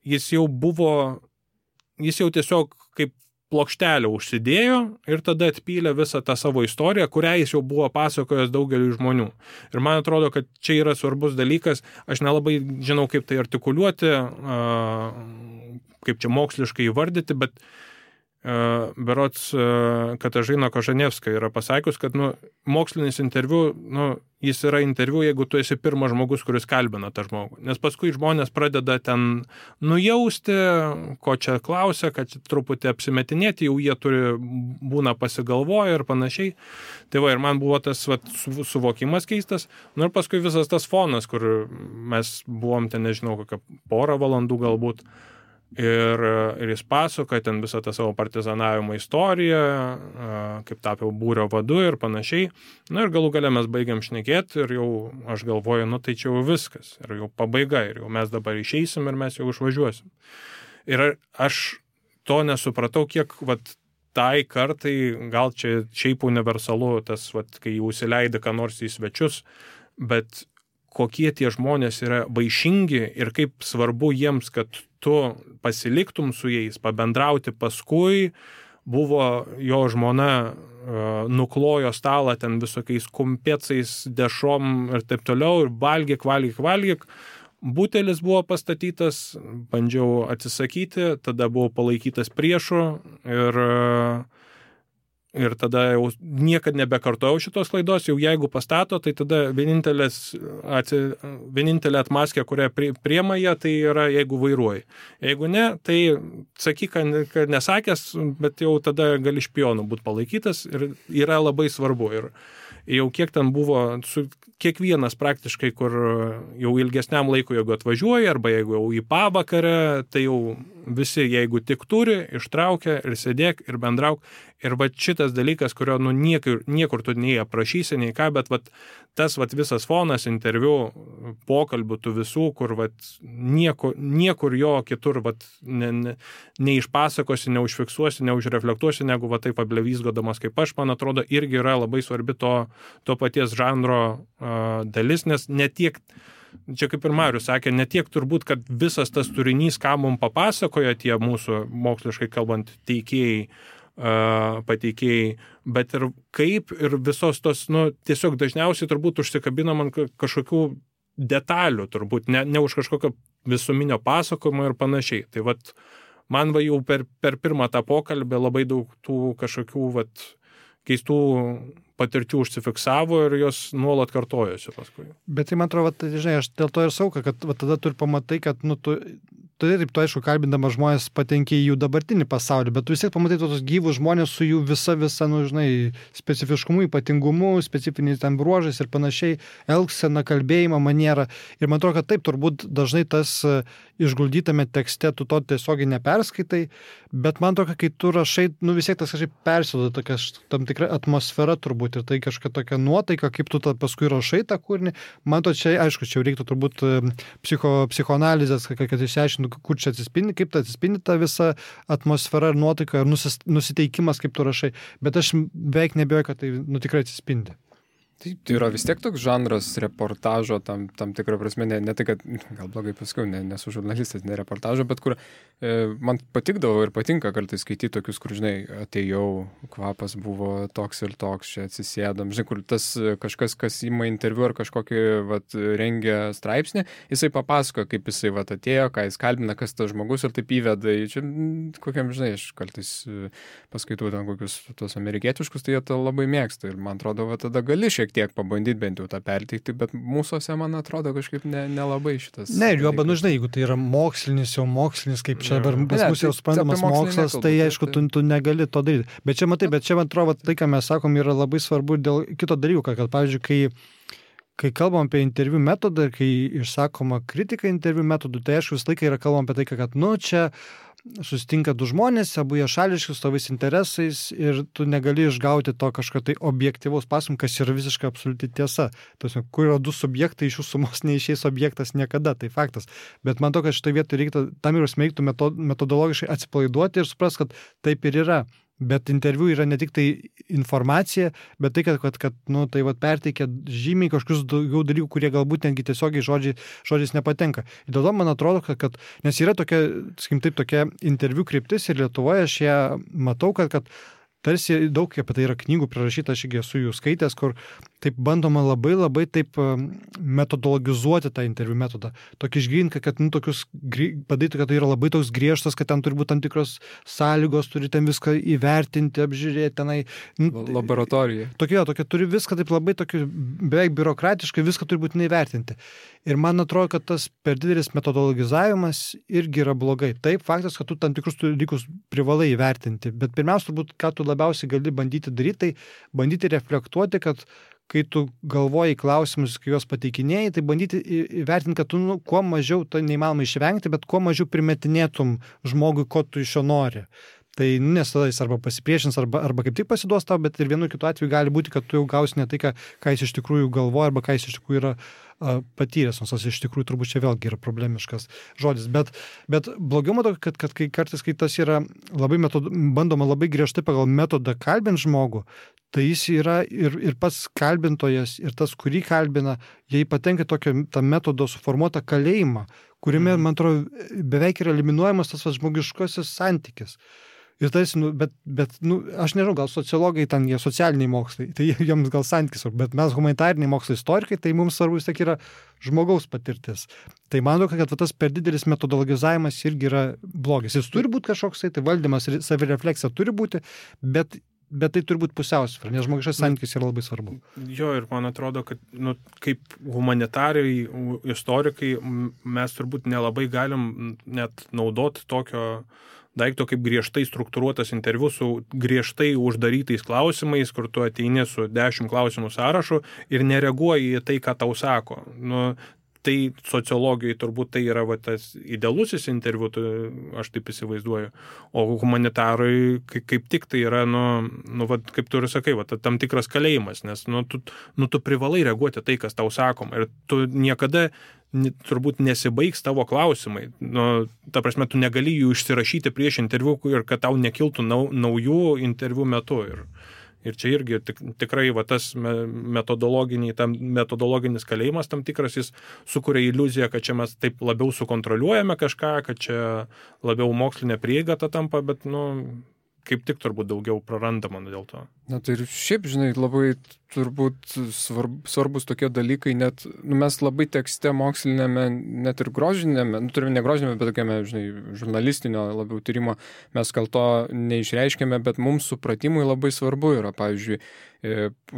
Jis jau tiesiog kaip plokštelę užsidėjo ir tada atpylė visą tą savo istoriją, kurią jis jau buvo pasakojęs daugeliu žmonių. Ir man atrodo, kad čia yra svarbus dalykas, aš nelabai žinau, kaip tai artikuliuoti, kaip čia moksliškai įvardyti, bet berods Katažina Kožanevska yra pasakius, kad mokslinis interviu, jis yra interviu, jeigu tu esi pirmas žmogus, kuris kalbina tą žmogų. Nes paskui žmonės pradeda ten nujausti, ko čia klausia, kad truputį apsimetinėti, jau jie būna pasigalvoję ir panašiai. Tai ir man buvo tas suvokimas keistas. Ir paskui visas tas fonas, kur mes buvom ten, nežinau, kokią porą valandų galbūt. Ir jis pasakoja ten visą tą savo partizanavimo istoriją, kaip tapiau būrio vadu ir panašiai. Ir galų gale mes baigiam šnekėti ir jau aš galvoju, tai čia jau viskas. Ir jau pabaiga, ir jau mes dabar išeisim ir mes jau išvažiuosim. Ir aš to nesupratau, kiek tai kartai, gal čia šiaip universalu, tas, kai jau įsileidė ką nors į svečius, bet kokie tie žmonės yra vaišingi ir kaip svarbu jiems, kad tu pasiliktum su jais, pabendrauti paskui, buvo jo žmona nuklojo stalą ten visokiais kumpėcais, dešom ir taip toliau, ir valgyk. Butelis buvo pastatytas, bandžiau atsisakyti, tada buvau palaikytas priešu ir tada jau niekad nebekartojau šitos klaidos, jau jeigu pastato, tai tada vienintelė atmaskė, kurią priema jie, tai yra jeigu vairuoji. Jeigu ne, tai sakyk, kad nesakęs, bet jau tada gali špionu būti palaikytas ir yra labai svarbu. Ir jau kiek ten buvo, kiekvienas praktiškai, kur jau ilgesniam laikui, jeigu atvažiuoja, arba jeigu jau į pavakarę, tai jau visi, jeigu tik turi, ištraukia ir sėdėk ir bendrauk. Ir šitas dalykas, kurio niekur tu nei aprašysi, nei ką, bet tas visas fonas, interviu, pokalbių tų visų, kur niekur jo kitur neišpasakosi, neužfiksuosi, neužreflektuosi, negu taip ablevysgodamas kaip aš, man atrodo, irgi yra labai svarbi to paties žanro dalis, nes netiek, čia kaip ir Marius sakė, netiek turbūt, kad visas tas turinys, ką mums papasakoja tie mūsų moksliškai kalbant teikėjai, pateikėjai, bet ir kaip ir visos tos, tiesiog dažniausiai turbūt užsikabinam ant kažkokių detalių, turbūt ne už kažkokio visuminio pasakojimo ir panašiai. Tai man jau per pirmą tą pokalbį labai daug tų kažkokių keistų patirčių užsifiksavo ir jos nuolat kartojosi paskui. Bet tai man atrodo, žinai, aš dėl to ir sauka, kad tada tu ir pamatai, kad tu aišku, kalbindamas žmonės patenki į jų dabartinį pasaulį, bet tu vis tiek pamatai tos gyvus žmonės su jų visa, specifiškumu, ypatingumu, specifiniais ten bruožais ir panašiai, elgsena, kalbėjimo maniera. Ir man atrodo, kad taip, turbūt dažnai tas išguldytame tekste tu to tiesiogiai neperskaitai, bet man atrodo, kai tu rašai, vis tiek tas kažkaip persiduoda tokia tam tikra atmosfera turbūt ir tai kažkokia tokia nuotaika, kaip tu paskui rašai tą kūrinį. Man to čia, aišku, čia reiktų turbūt psichoanalizės, kad išsiaiškintų, kur čia atsispindi, kaip tai atsispindi ta visa atmosfera ir nuotaika ir nusiteikimas, kaip tu rašai. Bet aš beveik nebijoju, kad tai tikrai atsispindi. Tai yra vis tiek toks žanras reportažo, tam tikrą prasme, ne tai, kad gal blogai paskui, nesu žurnalistas, ne reportažo, bet kur man patikdavo ir patinka kartais skaityti tokius, kur, žinai, atėjau, kvapas buvo toks ir toks, čia atsisėdam, žinai, kur tas kažkas, kas ima interviu ar kažkokį rengia straipsnį, jisai papasako, kaip jisai atėjo, ką jis kalbina, kas tas žmogus ir taip įveda, čia kokiam, žinai, aš kartais paskaitau ten kokius tos amerikietiškus, tai jie tą labai mėgsta ir man atrodo, tada gali šiek tiek pabandyti bent jau tą perteikti, bet mūsųse, man atrodo, kažkaip nelabai šitas. Ne, ir juoba, žinai, jeigu tai yra mokslinis, kaip čia dabar pas mus jau suprantamas mokslas, tai aišku, tu negali to daryti. Bet čia, man atrodo, tai, ką mes sakom, yra labai svarbu dėl kito dalyko, kad, pavyzdžiui, kai kalbam apie interviu metodą ir kai išsakoma kritika interviu metodų, tai aišku, visą laiką yra kalbam apie tai, kad, čia susitinka du žmonės, abu jie šališki, su savais interesais ir tu negali išgauti to kažkokio tai objektyvaus pasakojimo, kas yra visiškai absoliuti tiesa. Tasme, kur yra du subjektai, iš jų sumos neišeis objektas niekada, tai faktas. Bet man to, kad šitoje vietoje reiktų metodologiškai atsipalaiduoti ir supras, kad taip ir yra. Bet interviu yra ne tik tai informacija, bet tai, kad perteikia žymiai kažkokius daugiau dalykų, kurie galbūt netgi tiesiogiai žodžiais nepatenka. Ir dėl to man atrodo, kad nes yra tokia interviu kryptis ir Lietuvoje aš ją matau, kad tarsi daug apie tai yra knygų prirašyta, aš irgi esu jų skaitęs, kur taip bandoma labai taip metodologizuoti tą interviu metodą. Tokį išgryninti, kad tokius padaryti, kad tai yra labai toks griežtas, kad ten turi būti tam tikros sąlygos, turi ten viską įvertinti, apžiūrėti tenai. Laboratorija. Tokia turi viską taip labai tokį beveik biurokratiškai, viską turi būti neįvertinti. Ir man atrodo, kad tas per didelis metodologizavimas irgi yra blogai. Taip, faktas, kad tu tam tikrus dalykus privalai įvertinti, bet pirmiausia, turbūt, ką tu labiausiai gali bandyti daryti, tai bandyti reflektuoti, kad kai tu galvoji klausimus, kai juos pateikinėjai, tai bandyti įvertinti, kad tu kuo mažiau, tai neįmanoma išvengti, bet kuo mažiau primetinėtum žmogui, ko tu iš jo nori. Tai nes tada jis arba pasipriešins, arba kaip tik pasiduos tau, bet ir vienu kitu atveju gali būti, kad tu jau gausi ne tai, ką jis iš tikrųjų galvoja, arba ką jis iš tikrųjų yra patyręs, nors iš tikrųjų turbūt čia vėlgi yra problemiškas žodis. Bet blogiau matau, kad kai kartais, kai tas yra labai bandoma labai griežtai pagal metodą kalbinti žmogų, tai jis yra ir pats kalbintojas, ir tas, kurį kalbina, jie patenka tokio tą metodo suformuotą kalėjimą, kuriame, man atrodo, beveik yra eliminuojamas tas žmogiškasis santykis. Ir tas, bet aš nežinau, gal sociologai ten, jie socialiniai mokslai, tai jiems gal santykis, bet mes humanitariniai mokslai istorikai, tai mums svarbu vis tiek yra žmogaus patirtis. Tai manau, kad tas per didelis metodologizavimas irgi yra blogis. Jis turi būti kažkoks, tai valdymas ir savirefleksija turi būti, bet tai turi būti pusiausvyra, nes žmogiškas santykis yra labai svarbu. Jo, ir man atrodo, kad kaip humanitariai, istorikai, mes turbūt nelabai galim net naudoti tokio daikto kaip griežtai struktūruotas interviu su griežtai uždarytais klausimais, kur tu ateini su 10 klausimų sąrašu ir nereaguoji į tai, ką tau sako. Tai sociologijai turbūt tai yra tas idealusis interviu, aš taip įsivaizduoju. O humanitarai kaip tik tai yra, kaip tu ir sakai, tam tikras kalėjimas, nes tu privalai reaguoti tai, kas tau sakoma. Ir tu niekada turbūt nesibaigs tavo klausimai. Ta prasme, tu negali jų išsirašyti prieš interviu ir kad tau nekiltų naujų interviu metu. Ir čia irgi tikrai tas metodologinis kalėjimas tam tikras, jis sukuria iliuziją, kad čia mes taip labiau sukontroliuojame kažką, kad čia labiau mokslinė prieiga ta tampa, bet kaip tik turbūt daugiau prarandama dėl to. Tai ir šiaip, labai turbūt svarbus tokie dalykai, net mes labai tekste mokslinėme, net ir grožinėme, turime ne grožinėme, bet tokiame, žurnalistinio labiau tyrimo, mes gal to neišreiškėme, bet mums supratimui labai svarbu yra, pavyzdžiui,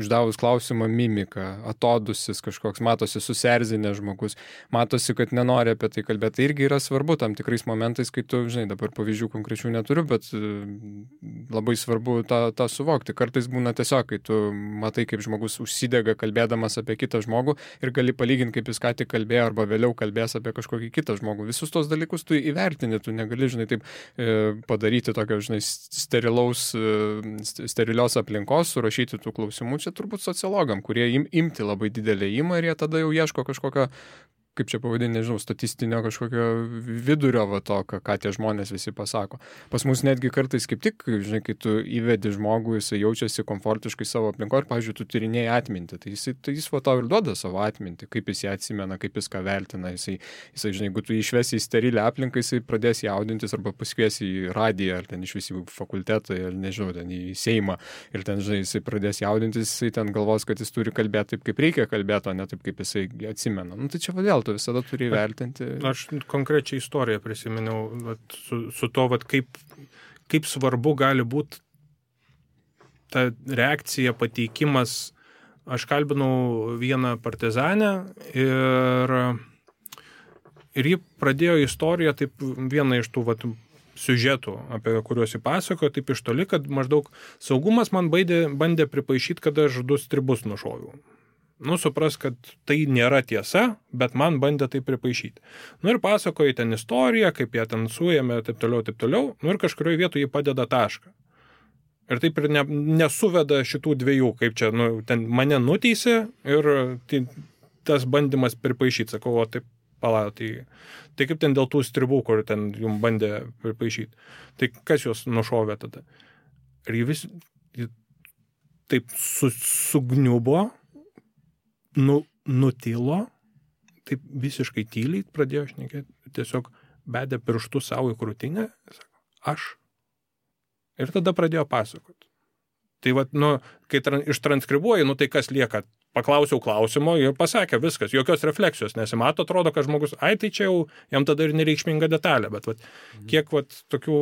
uždavus klausimą mimika, atodusis kažkoks, matosi susierzinęs žmogus, matosi, kad nenori apie tai kalbėti. Tai irgi yra svarbu tam tikrais momentais, kai tu, dabar pavyzdžių konkrečių neturiu, bet labai svarbu tą suvokti. Kartais būna tiesiog, kai tu matai, kaip žmogus užsidega kalbėdamas apie kitą žmogų ir gali palyginti, kaip jis ką tik kalbėjo arba vėliau kalbės apie kažkokį kitą žmogų. Visus tos dalykus tu įvertini, tu negali, taip padaryti tokio, sterilios aplinkos, surašyti tų klausimų. Čia turbūt sociologam, kurie imti labai didelę įmą ir jie tada jau ieško kažkokio, kaip čia pavadinti, statistinio kažkokio vidurio to, ką tie žmonės visi pasako. Pas mus netgi kartais kaip tik, kai tu įvedi žmogų, jisai jaučiasi komfortiškai savo aplinkoje ir, pavyzdžiui, tu tyrinėjai atmintį, tai jis tau ir duoda savo atmintį, kaip jis ją atsimena, kaip jis ką vertina, jisai jeigu tu išvesi į sterilę aplinką, jisai pradės jaudintis arba pasikviesi į radiją, ar ten išvis į fakultetą, ar nežinau, ten į Seimą, ir ten, jisai pradės jaudintis, jisai ten galvos, kad jis turi kalbėti taip, kaip reikia kalbėti, o ne taip, kaip jisai atsimena. Tai čia vėl tu visada turi vertinti. Aš konkrečią istoriją prisiminiau su to, kaip svarbu gali būti ta reakcija, pateikimas. Aš kalbinau vieną partizanę ir ji pradėjo istoriją, taip vieną iš tų siužetų, apie kuriuos jį pasakojo, taip iš toli, kad maždaug saugumas man bandė pripaišyti, kad aš 2 stribus nušoviau. Supras, kad tai nėra tiesa, bet man bandė tai pripaišyti. Ir pasakoja ten istoriją, kaip jie ten suėmė, taip toliau. Ir kažkurioje vietoje jį padeda tašką. Ir taip ir nesuveda šitų dviejų, kaip čia, ten mane nuteisė ir tas bandymas pripaišyti. Sakau, o taip, tai kaip ten dėl tų stribų, kur ten jums bandė pripaišyti. Tai kas juos nušovė tada? Ir jį vis taip sugniubo, nutilo, taip visiškai tyliai pradėjo šnekėti, tiesiog bedė pirštų savo į krūtinę, sako, aš. Ir tada pradėjo pasakoti. Tai vat, nu, kai ištranskribuoji, nu tai kas lieka? Paklausiau klausimo ir pasakė viskas, jokios refleksijos nesimato, atrodo, kad žmogus, ai tai čia jau jam tada ir nereikšminga detalė, bet vat, kiek vat, tokių...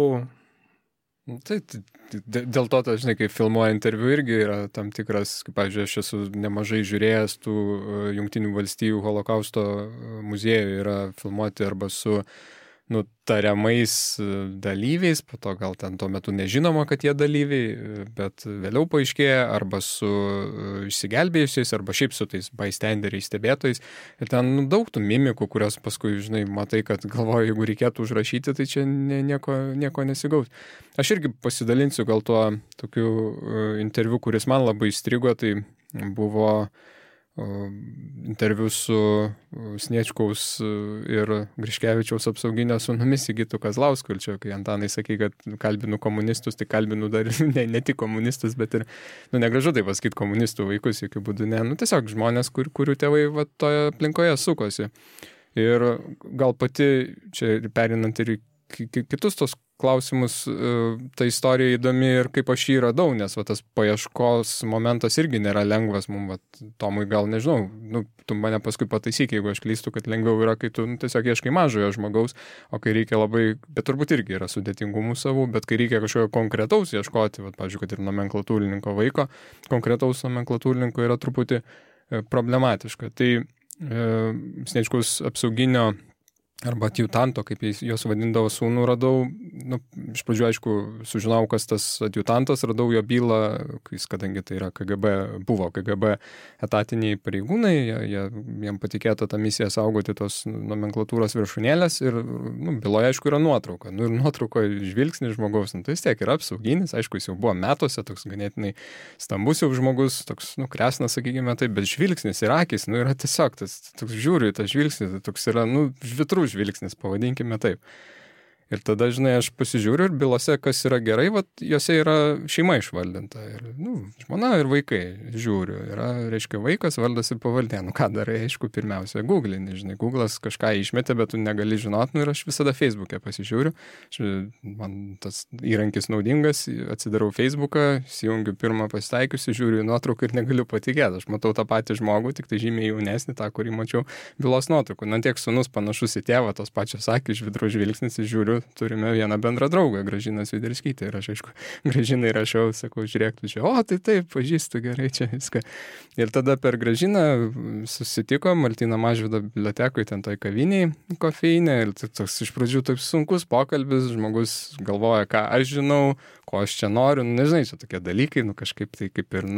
Tai dėl to, žinai, kai filmuoja interviu irgi yra tam tikras, kaip, pavyzdžiui, aš esu nemažai žiūrėjęs tų Jungtinių valstijų holokausto muziejų yra filmuoti arba su tariamais dalyviais, po to gal ten tuo metu nežinoma, kad jie dalyviai, bet vėliau paaiškėja, arba su išsigelbėjusiais, arba šiaip su tais bystanderiais, stebėtojais. Ir ten daug tų mimikų, kurios paskui, žinai, matai, kad galvoju, jeigu reikėtų užrašyti, tai čia nieko nesigaus. Aš irgi pasidalinsiu gal tuo tokiu interviu, kuris man labai įstrigo, tai buvo interviu su Sniečkaus ir Griškevičiaus apsauginio sūnumi Sigitu Kazlausku. Ir čia, kai Antanai sakė, kad kalbinu komunistus, tai kalbinu dar ne tik komunistus, bet ir, negražu tai pasakyti komunistų vaikus, jokių būdų ne. Tiesiog žmonės, kurių tėvai toje aplinkoje sukosi. Ir gal pati, čia perinant ir kitus tos klausimus, ta istorija įdomi ir kaip aš jį radau, nes tas paieškos momentas irgi nėra lengvas mums, Tomui gal nežinau, tu mane paskui pataisyk, jeigu aš klystu, kad lengviau yra, kai tu tiesiog ieškai mažojo žmogaus, o kai reikia labai, bet turbūt irgi yra sudėtingumų savų, bet kai reikia kažkokio konkretaus ieškoti, pavyzdžiui, kad ir nomenklatūrininko vaiko, konkretaus nomenklatūrininko yra truputį problematiška. Tai Sniečkaus apsauginio arba adjutanto, kaip juos vadindavo sūnų, radau, iš pradžių, aišku, sužinau, kas tas adjutantas, radau jo bylą, kadangi tai yra buvo KGB etatiniai pareigūnai, jiem patikėta tą misiją saugoti tos nomenklatūros viršūnėlės ir byloje, aišku, yra nuotrauka. Ir nuotraukoje žvilgsnis žmogaus, tai vis tiek yra apsauginis, aišku, jis jau buvo metuose, toks ganėtinai stambus jau žmogus, toks, kresnas, sakykime taip, bet žvilgsnis ir akis, yra tiesiog, toks žiūriu į tą žvilgsnį, toks yra, žvitrų žvilgsnis, pavadinkime taip. Ir tada, žinai, aš pasižiūriu ir bylose, kas yra gerai, jose yra šeima išvaldinta. Ir, žmona ir vaikai, žiūriu. Yra, reiškia, vaikas, vardas ir pavardė. Ką darai, aišku, pirmiausia, Google'ini, žinai. Google'as kažką išmetė, bet tu negali žinot, ir aš visada Facebook'e pasižiūriu. Man tas įrankis naudingas, atsidarau Facebook'ą, įsijungiu pirmą pasitaikiusi, žiūriu į nuotrauką ir negaliu patikėti. Aš matau tą patį žmogų, tik tai žymiai jaunesnį, tą, kurį mačiau bylos nuotraukų. Tiek sūnus panašus į tėvą, tos pačios akys, žvitrų žvilgsnis, žiūriu, turime vieną bendrą draugą, Gražiną Sviderskytę. Ir aš, aišku, Gražinai rašiau, sakau, žiūrėk, tu čia, tai taip, pažįstu gerai čia viską. Ir tada per Gražiną susitikom Martyno Mažvydo bibliotekoje, ten toj kaviniai kofeinė. Ir toks iš pradžių taip sunkus pokalbis, žmogus galvoja, ką aš žinau, ko aš čia noriu. Nežinai, čia tokie dalykai, kažkaip tai kaip ir,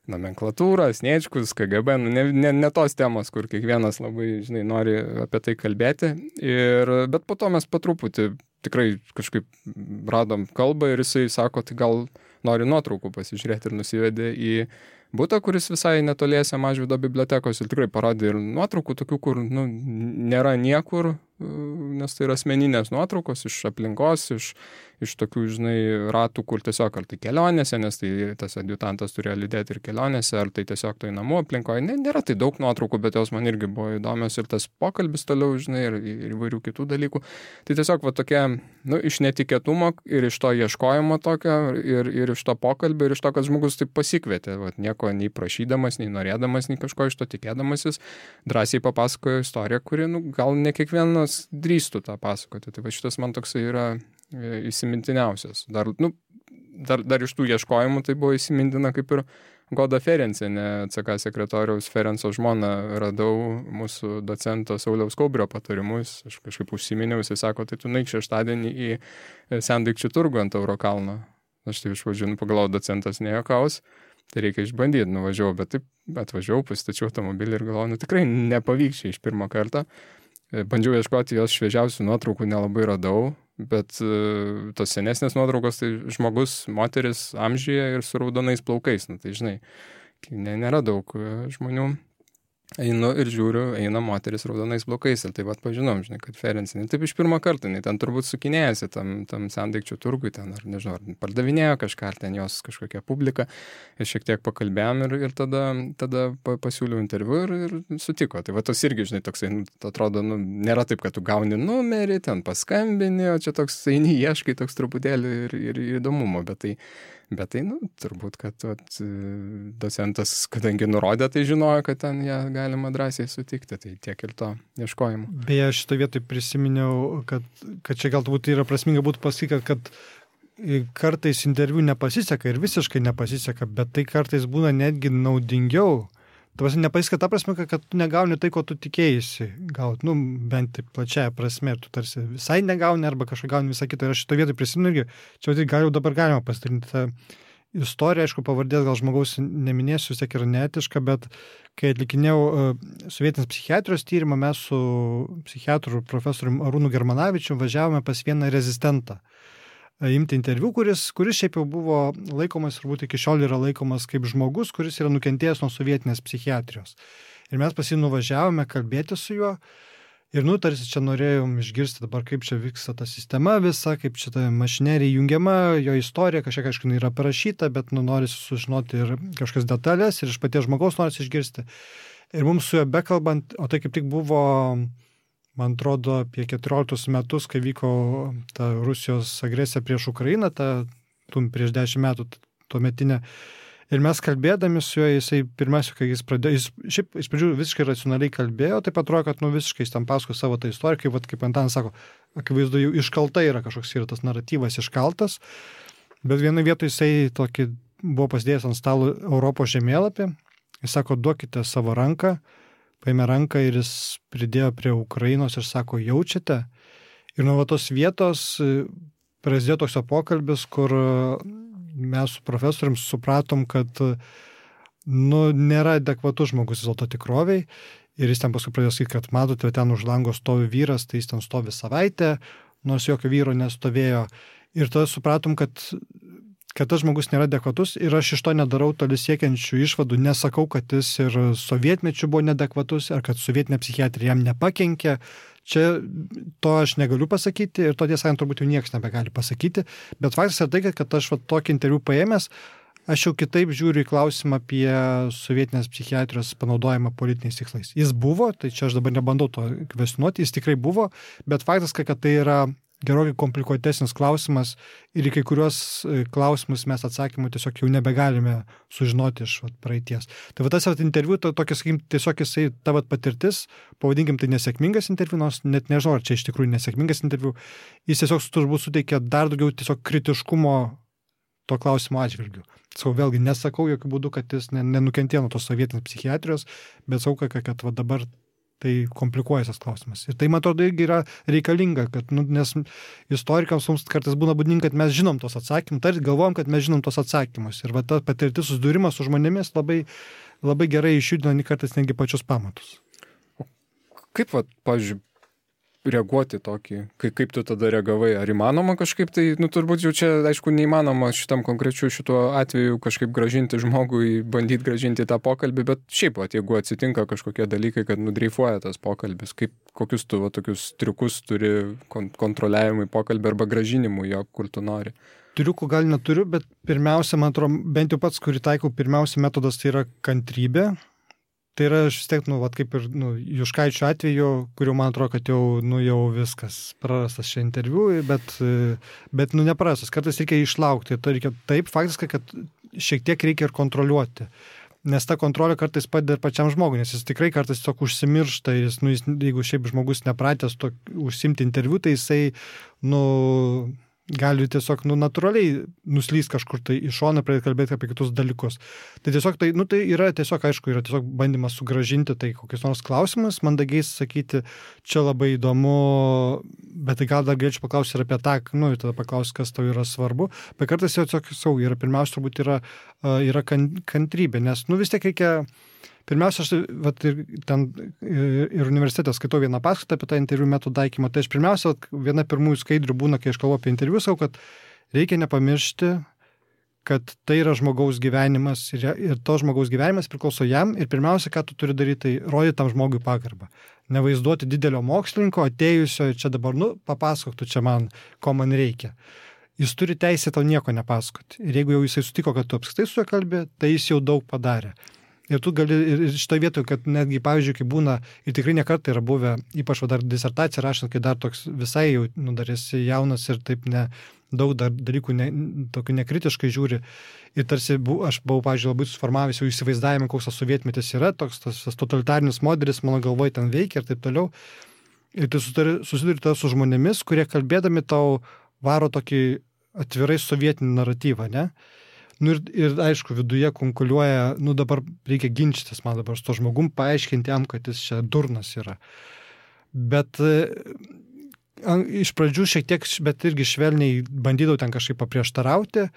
nomenklatūra, Sniečkus, KGB, ne tos temos, kur kiekvienas labai, žinai, nori apie tai kalbėti. Bet po to mes patruputį tikrai kažkaip radom kalbą ir jisai sako, tai gal nori nuotraukų pasižiūrėti ir nusivedė į butą, kuris visai netoliese Mažvydo bibliotekos ir tikrai parodė ir nuotraukų tokių, kur nėra niekur, nes tai yra asmeninės nuotraukos iš aplinkos, iš tokių, žinai, ratų, kur tiesiog ar tai kelionėse, nes tai tas adjutantas turėjo lydėti ir kelionėse, ar tai tiesiog tai namų aplinkoje. Nėra tai daug nuotraukų, bet jos man irgi buvo įdomios ir tas pokalbis toliau, žinai, ir įvairių kitų dalykų. Tai tiesiog tokia, iš netikėtumo ir iš to ieškojimo tokio, ir iš to pokalbio, ir iš to, kad žmogus taip pasikvietė, nieko nei prašydamas, nei norėdamas, nei kažko iš to tikėdamasis, drąsiai papasakojo istoriją, kuri, gal ne kiekvienas drįstų tą pasakoti. Tai šitas man toksai yra įsimintiniausias. Dar iš tų ieškojimų tai buvo įsimintina kaip ir Goda Ferencienė, CK sekretoriaus Ferenco žmona, radau mūsų docento Sauliaus Kaubrio patarimus. Aš kažkaip užsiminiau, jisai sako, tai tu naik šeštadienį į Sendaikčių turgų ant Tauro kalno. Aš tai iš pradžių pagalvojau, docentas nejuokaus, tai reikia išbandyti, nuvažiavau, bet taip atvažiavau, pasistačiau automobilį ir galvojau, tikrai nepavyks čia iš pirmo karto. Bandžiau ieškoti jos šviežiausių nuotraukų, nelabai radau, bet tos senesnės nuotraukos, tai žmogus, moteris amžiuje ir su raudonais plaukais, tai žinai, nėra daug žmonių. Einu ir žiūriu, eina moteris raudonais plaukais ir taip pat pažinom, žinai, kad Ferencienė. Taip iš pirmo karto, ten turbūt sukinėjasi tam Sendaikčių turgui, ten, ar nežinau, ar pardavinėjo kažką, ar ten jos kažkokia publika. Ir šiek tiek pakalbėjom ir tada pasiūliau interviu ir sutiko. Tai va tos irgi, žinai, toksai, atrodo, nėra taip, kad tu gauni numerį, ten paskambini, o čia toks eini, ieškai toks truputėlį ir įdomumo, bet tai Bet tai, turbūt, kad docentas, kadangi nurodė, tai žinojo, kad ten ją galima drąsiai sutikti, tai tiek ir to ieškojimo. Beje, šitą vietą prisiminiau, kad čia galbūt yra prasminga būtų pasakyti, kad kartais interviu nepasiseka ir visiškai nepasiseka, bet tai kartais būna netgi naudingiau. Tavasi nepasiseka ta prasme, kad tu negauni tai, ko tu tikėjai gauti, bent taip plačiaja prasme, ir tu tarsi visai negauni arba kažką gauni visą kitą. Ir aš šito vietoj prisimenu irgi, čia dabar galima pasidalinti tą istoriją, aišku, pavardės gal žmogaus neminėsiu, vis tiek yra neetiška, bet kai atlikinėjau sovietinės psichiatrijos tyrimą, mes su psichiatru profesoriumi Arūnu Germanavičiu važiavome pas vieną rezistentą imti interviu, kuris šiaip jau buvo laikomas, turbūt iki šiol yra laikomas kaip žmogus, kuris yra nukentėjęs nuo sovietinės psichiatrijos. Ir mes pas jį nuvažiavome kalbėti su juo ir tarsi čia norėjom išgirsti dabar, kaip čia vyksta ta sistema visa, kaip čia ta mašinerija jungiama, jo istorija, kažkiek, aišku, yra parašyta, bet norisi sužinoti ir kažkas detalės ir iš paties žmogaus norisi išgirsti. Ir mums su juo bekalbant, o tai kaip tik buvo, man atrodo, apie 14 metus, kai vyko ta Rusijos agresija prieš Ukrainą, prieš 10 metų tuometinė. Ir mes kalbėdami su juo, jisai pirmiausia, kai jis pradėjo, šiaip iš pradžių visiškai racionaliai kalbėjo, taip atrodo, kad visiškai jis tam pasako savo tą istoriją, kaip Antanas sako, akivaizdu jau iškalta yra kažkoks yra tas naratyvas iškaltas, bet vienoje vietoje jisai tokį buvo pasidėjęs ant stalo Europos žemėlapį, jis sako, duokite savo ranką, paėmė ranką ir jis pridėjo prie Ukrainos ir sako, jaučiate? Ir nuo tos vietos prasidėjo toks pokalbis, kur mes su profesorium supratom, kad nėra adekvatus žmogus vis dėlto tikroviai. Ir jis ten paskui pradėjo sakyti, kad matote, ten už lango stovi vyras, tai jis ten stovi savaitę, nors jokio vyro nestovėjo. Ir tada supratom, kad tas žmogus nėra adekvatus ir aš iš to nedarau toli siekiančių išvadų, nesakau, kad jis ir sovietmečiu buvo neadekvatus, ar kad sovietinė psichiatrija jam nepakenkė. Čia to aš negaliu pasakyti ir to tiesą sakant turbūt jau niekas nebegali pasakyti, bet faktas yra tai, kad aš tokį interviu paėmęs, aš jau kitaip žiūriu į klausimą apie sovietinės psichiatrijos panaudojimą politiniais tikslais. Jis buvo, tai čia aš dabar nebandau to kvestionuoti, jis tikrai buvo, bet faktas, kad tai yra gerokai komplikuotesnis klausimas ir į kai kuriuos klausimus mes atsakymų tiesiog jau nebegalime sužinoti iš praeities. Tai tas interviu, tokia, sakykim, tiesiog jisai ta patirtis, pavadinkim tai nesėkmingas interviu, nors net nežinau, ar čia iš tikrųjų nesėkmingas interviu, jis tiesiog turbūt suteikia dar daugiau tiesiog kritiškumo to klausimo atžvilgių. Vėlgi nesakau jokių būdų, kad jis nenukentėjo nuo tos sovietinės psichiatrijos, bet sakau, kad dabar tai komplikuojas klausimas. Ir tai, man atrodo, irgi yra reikalinga, kad, nes istorikams mums kartais būna būdinga, kad mes žinom tos atsakymus, tai galvojam, kad mes žinom tos atsakymus. Ir ta patirtis susidūrimas su žmonėmis labai, labai gerai išjudina kartais netgi pačius pamatus. Kaip, pavyzdžiui, reaguoti tokį, kaip tu tada reagavai? Ar įmanoma kažkaip tai, turbūt jau čia, aišku, neįmanoma šitam konkrečiu šituo atveju kažkaip gražinti žmogui, bandyti gražinti tą pokalbį, bet šiaip, jeigu atsitinka kažkokie dalykai, kad nudreifuoja tas pokalbis, kokius tu tokius triukus turi kontroliavimui pokalbį arba gražinimui jo, kur tu nori? Triukų gal neturiu, bet pirmiausia, man atrodo, bent jau pats, kurį taikau, pirmiausia metodas tai yra kantrybė. Tai yra, aš vis tiek, kaip ir Juškaičio atveju, kuriuo man atrodo, kad jau viskas prarastas šia interviu, bet neprarastas. Kartais reikia išlaukti. Tai reikia taip, faktiškai, kad šiek tiek reikia ir kontroliuoti. Nes ta kontrolė kartais padeda ir pačiam žmogui, nes jis tikrai kartais tiesiog užsimiršta. Jeigu šiaip žmogus nepratęs užsimti interviu, tai jisai, gali tiesiog natūraliai nuslys kažkur tai iš šono, pradėti kalbėti apie kitus dalykus. Tai tiesiog tai yra tiesiog, aišku, yra tiesiog bandymas sugrąžinti tai kokius nors klausimus, mandagiai sakyti, čia labai įdomu, bet tai gal dar galėčiau paklausti ir apie tą, ir tada paklausti, kas tau yra svarbu. Bet kartais jau tiesiog pirmiausia turbūt yra kantrybė, nes vis tiek reikia. Pirmiausia, aš ir universitete skaitau vieną paskaitą apie tą interviu metodų taikymą. Tai aš pirmiausia, viena pirmųjų skaidrių būna, kai aš kalbu apie interviu, sakau, kad reikia nepamiršti, kad tai yra žmogaus gyvenimas ir to žmogaus gyvenimas priklauso jam ir pirmiausia, ką tu turi daryti, tai rodyti tam žmogui pagarbą. Nevaizduoti didelio mokslininko, atėjusio ir čia dabar, papasakok tu čia man, ko man reikia. Jis turi teisę tau nieko nepasakoti. Ir jeigu jau jisai sutiko, kad tu apskritai su juo kalbė, tai jis jau daug padarė. Ir tu gali, ir šitą vietą, kad netgi, pavyzdžiui, kai būna, ir tikrai nekartą yra buvę, ypač dar disertaciją rašant, kai dar toks visai jau dar esi jaunas ir taip daug dalykų tokių nekritiškai žiūri. Ir tarsi aš buvau, pavyzdžiui, labai suformavęs jau įsivaizdavimą, koks tas sovietmetis yra, toks tas totalitarinis modelis mano galvoje ten veikia ir taip toliau. Ir tu susiduri su žmonėmis, kurie kalbėdami tau varo tokį atvirai sovietinį naratyvą, ne? Nu ir aišku, viduje konkuliuoja, dabar reikia ginčytis man dabar su to žmogum, paaiškinti jam, kad jis čia durnas yra. Bet iš pradžių šiek tiek, bet irgi švelniai bandydavau ten kažkaip paprieštarauti,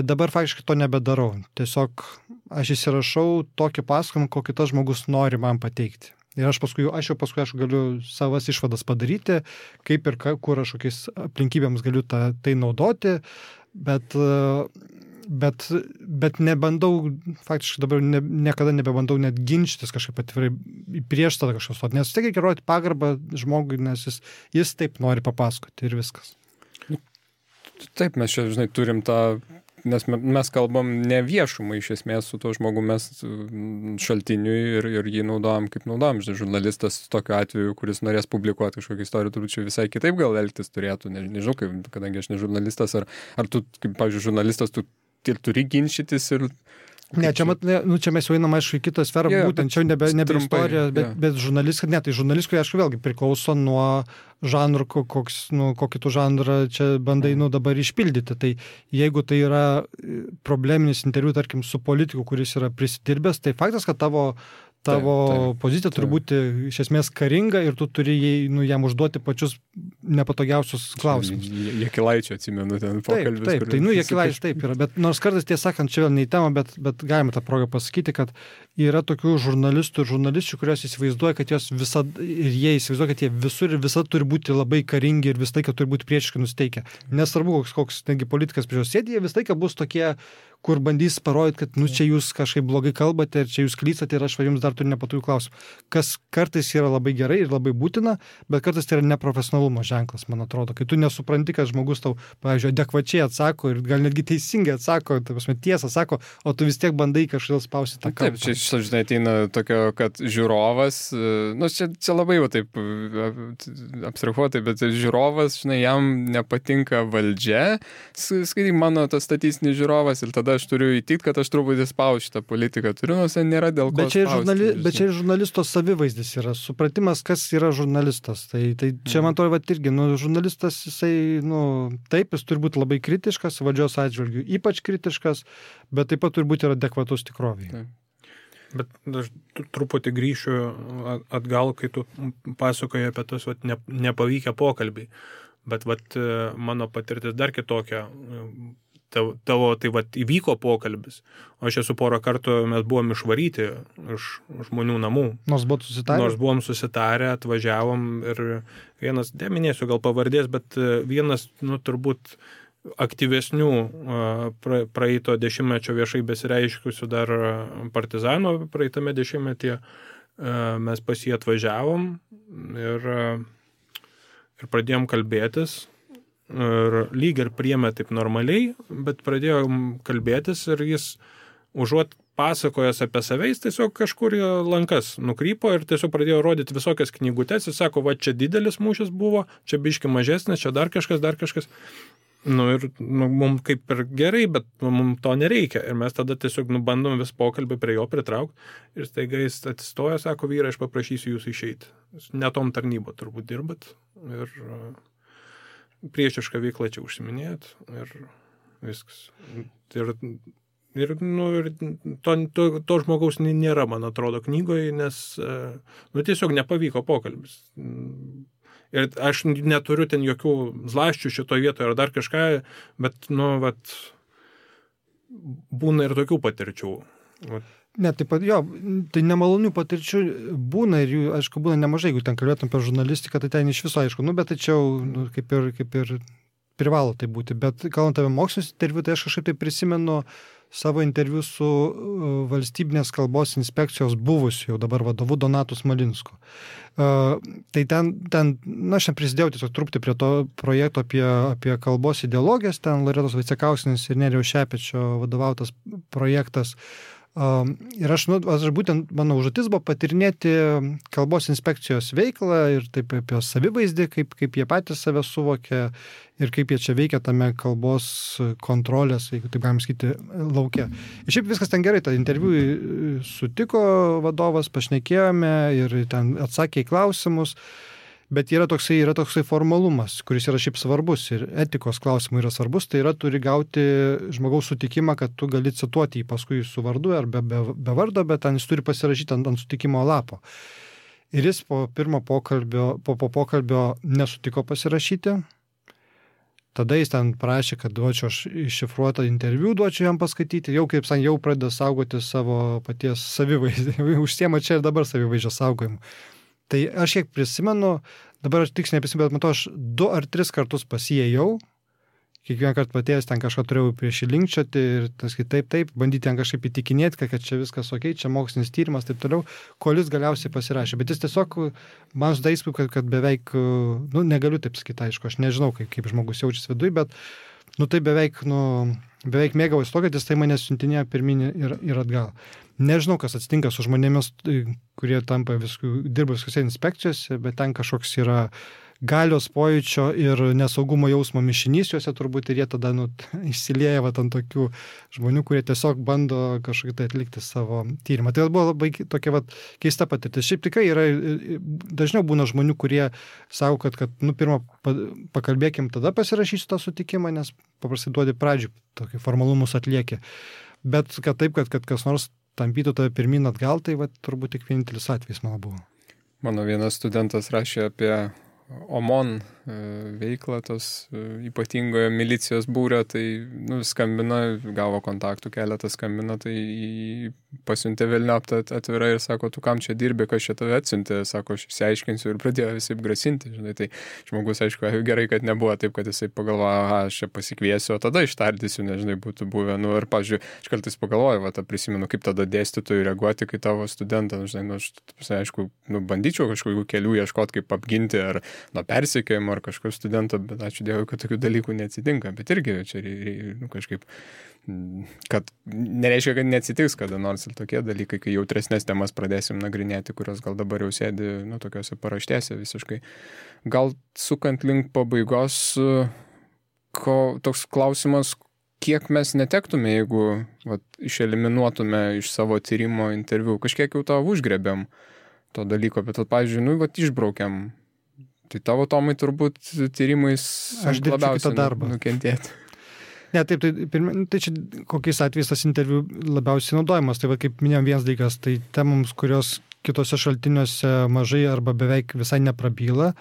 dabar faktiškai to nebedarau. Tiesiog aš įsirašau tokį pasakojimą, kokį tas žmogus nori man pateikti. Ir aš jau paskui galiu savas išvadas padaryti, kaip ir kur aš kokiais aplinkybėms galiu tai naudoti, bet nebandau, faktiškai dabar niekada nebebandau net ginčytis kažkaip atvirai prieš tada kažkas stoti, nes tik reikia rodyti pagarbą žmogui, nes jis taip nori papasakoti ir viskas. Taip, mes čia, žinai, turim tą, nes mes kalbam ne viešumai iš esmės su tuo žmogu, mes šaltiniui ir jį naudojam kaip naudojam. Žinai, žurnalistas tokiu atveju, kuris norės publikuoti kažkokią istoriją, turbūt čia visai kitaip gal elgtis turėtų, nežinau, kadangi aš ne žurnalistas, ar tu, kaip, pavyzdžiui, žurnalistas, tu turi ginčytis ir... Ne, čia mes jau einam, aišku, į kitą sferą, būtent čia nebe istorija, bet žurnalistika, tai žurnalistikui, aišku, vėlgi priklauso nuo žanrų, kokį tu žanrą čia bandai dabar išpildyti. Tai jeigu tai yra probleminis interviu, tarkim, su politiku, kuris yra prisidirbęs, tai faktas, kad tavo pozicija turi būti iš esmės karinga ir tu turi jam užduoti pačius nepatogiausius klausimus. Jakilaičio atsimenu ten pokalbis. Taip, tai Jakilaičio taip yra, bet nors kartais tiesą sakant, čia vėl ne į temą, bet galime tą progą pasakyti, kad yra tokių žurnalistų ir žurnalisčių, kurios įsivaizduoja, kad jos visada, ir jie įsivaizduoja, kad jie visur ir visada turi būti labai karingi ir visą laiką turi būti priešiškai nusteikę. Nesvarbu, koks politikas prieš juos sėdi, jie visą laiką bus tokie, kur bandys parodyti, kad čia jūs kažkaip blogai kalbate ir čia jūs klystate ir aš jums dar turiu nepatogių klausimų. Kas kartais yra labai gerai ir labai būtina, bet kartais tai yra neprofesionalumo ženklas, man atrodo. Kai tu nesupranti, kad žmogus tau, pavyzdžiui, adekvačiai atsako ir gal netgi teisingai atsako, tiesą sako, o tu vis tiek bandai kažkodėl spausti tą kalbą. Taip, čia žinai, ateina tokio, kad žiūrovas, čia labai jau taip abstrahuotai, bet žiūrovas, žinai, jam nepatinka valdžia, skaitai mano tas statistinis žiūrovas ir tada aš turiu įtikti, kad aš truputį spausiu šitą politiką. Turiu, nors ten nėra dėl ko spausti. Bet čia ir žurnalisto savivaizdis yra, supratimas, kas yra žurnalistas. Tai čia man atrodo, irgi, žurnalistas, jisai, taip, jis turi būti labai kritiškas, valdžios atžvilgių, ypač kritiškas, bet taip pat turi būti ir adekvatus tikroviai. Bet aš truputį grįšiu atgal, kai tu pasakoji apie tas nepavykę pokalbį. Bet mano patirtis dar kitokia. Tavo įvyko pokalbis, o aš esu porą kartų, mes buvom išvaryti iš žmonių namų. Nors buvom susitarę, atvažiavom ir vienas, neminėsiu gal pavardės, bet vienas, turbūt aktyvesnių praeito dešimtmečio viešai besireiškusių dar partizanų praeitame dešimtmetyje, mes pas jį atvažiavom ir pradėjom kalbėtis. Ir lyg ir priėmė taip normaliai, bet pradėjom kalbėtis ir jis užuot pasakojęs apie save, jis tiesiog kažkur lankas nukrypo ir tiesiog pradėjo rodyti visokias knygutes. Jis sako, čia didelis mūšis buvo, čia biški mažesnis, čia dar kažkas. Mums kaip ir gerai, bet mums to nereikia. Ir mes tada tiesiog bandom vis pokalbį prie jo pritraukti. Ir staiga jis atsistoja, sako, vyrai, aš paprašysiu jūsų išeiti. Netom tarnybo turbūt dirbat. Ir priešišką veiklą čia užsiminėjot ir viskas. Ir to žmogaus nėra, man atrodo, knygoje, nes tiesiog nepavyko pokalbis. Ir aš neturiu ten jokių zlaščių šitoje vietoje ar dar kažką, bet, būna ir tokių patirčių. Ne, taip pat, tai nemalonių patirčių būna ir jų, aišku, būna nemažai, jeigu ten kalbėtum apie žurnalistiką, tai ten iš viso, aišku, bet tačiau kaip ir privalo tai būti. Bet kalbant apie mokslinius interviu, tai aš kažkaip tai prisimenu savo interviu su valstybinės kalbos inspekcijos buvusiu jau dabar vadovu Donatu Smalinsku. Tai ten aš prisidėjau tiesiog truputį prie to projekto apie kalbos ideologijas, ten Loretos Vaicekauskienės ir Nerijaus Šepečio vadovautas projektas. Ir aš būtent mano užduotis buvo patirinėti kalbos inspekcijos veiklą ir taip apie savivaizdį, kaip jie patys save suvokia ir kaip jie čia veikia tame kalbos kontrolės, jeigu taip galim sakyti, lauke. Ir šiaip viskas ten gerai, tą interviu sutiko vadovas, pašnekėjome ir ten atsakė į klausimus. Bet yra toksai formalumas, kuris yra šiaip svarbus ir etikos klausimų yra svarbus, tai yra turi gauti žmogaus sutikimą, kad tu gali cituoti jį paskui su vardu ar be vardo, bet ten jis turi pasirašyti ant sutikimo lapo. Ir jis po pokalbio nesutiko pasirašyti. Tada jis ten prašė, kad duočiau aš iššifruotą interviu, duočiau jam paskaityti, jau kaip jau pradeda saugoti savo paties savivaizdį, užsiema čia ir dabar savivaizdžio saugojimu. Tai aš kiek prisimenu, dabar aš tiksliai neprisimenu, bet matau, aš 2 ar 3 kartus pasijėjau, kiekvieną kartą patėjęs ten kažką turėjau prieš įlinkčioti ir taip, bandyti ten kažkaip įtikinėti, kad čia viskas ok, čia mokslinis tyrimas, taip toliau, kol jis galiausiai pasirašė. Bet jis tiesiog, man sudarė įspūdį, kad beveik, negaliu taip sakyti, aišku, aš nežinau, kaip žmogus jaučiasi viduje, bet, tai beveik mėgavosi to, kad jis tai mane siuntinėjo pirmin ir atgal. Nežinau, kas atsitinka su žmonėmis, kurie tampa dirba visose inspekcijose, bet ten kažkoks yra galios pojūčio ir nesaugumo jausmo mišinys juose turbūt ir jie tada išsilieja ant tokių žmonių, kurie tiesiog bando kažkaip tai atlikti savo tyrimą. Tai buvo labai tokia keista patirtis. Šiaip tikrai yra, dažniau būna žmonių, kurie sako, kad pirmą pakalbėkim, tada pasirašysiu tą sutikimą, nes paprastai duodi pradžių, tokį formalumus atlieki. Bet kad kas nors tampytų tave pirmin atgal, tai turbūt tik vienintelis atvejis mano buvo. Mano vienas studentas rašė apie OMON veiklą, tos ypatingojo milicijos būrio, tai skambina, gavo kontaktų, keletą skambina, tai pasiuntė velniop atvirai ir sako, tu kam čia dirbi, kas čia tave atsiuntė, sako, aš išsiaiškinsiu ir pradėjo visai grasinti, žinai, tai žmogus, aišku, gerai, kad nebuvo taip, kad jisai pagalvoja, aš čia pasikviesiu, o tada ištardysiu, nežinai, būtų buvę, ir, pavyzdžiui, aš kartais pagalvoju, prisimenu, kaip tada dėstytojui reaguoti, kai tavo studentą, žinai, aš, aišku, bandyčiau kažkokių kelių ieškoti, kaip apginti ar nuo persekiojimo ar kažkokio studento, bet ačiū Dievui, kad tokių dalykų neatsitinka, bet irgi čia kažkaip, kad nereiškia, kad neatsitiks kada nors ir tokie dalykai, kai jautresnės temas pradėsim nagrinėti, kurios gal dabar jau sėdi, tokiuose paraštėse visiškai. Gal sukant link pabaigos, toks klausimas, kiek mes netektume, jeigu išeliminuotume iš savo tyrimo interviu, kažkiek jau tavo užgrebėm to dalyko, bet pavyzdžiui, išbraukiam. Tai tavo, Tomai, turbūt tyrimais labiausiai nukentėti. Ne, taip, tai čia kokiais atvejais tas interviu labiausiai naudojamas. Tai kaip minėjom, vienas dalykas, tai temoms, kurios kitose šaltiniuose mažai arba beveik visai neprabyla.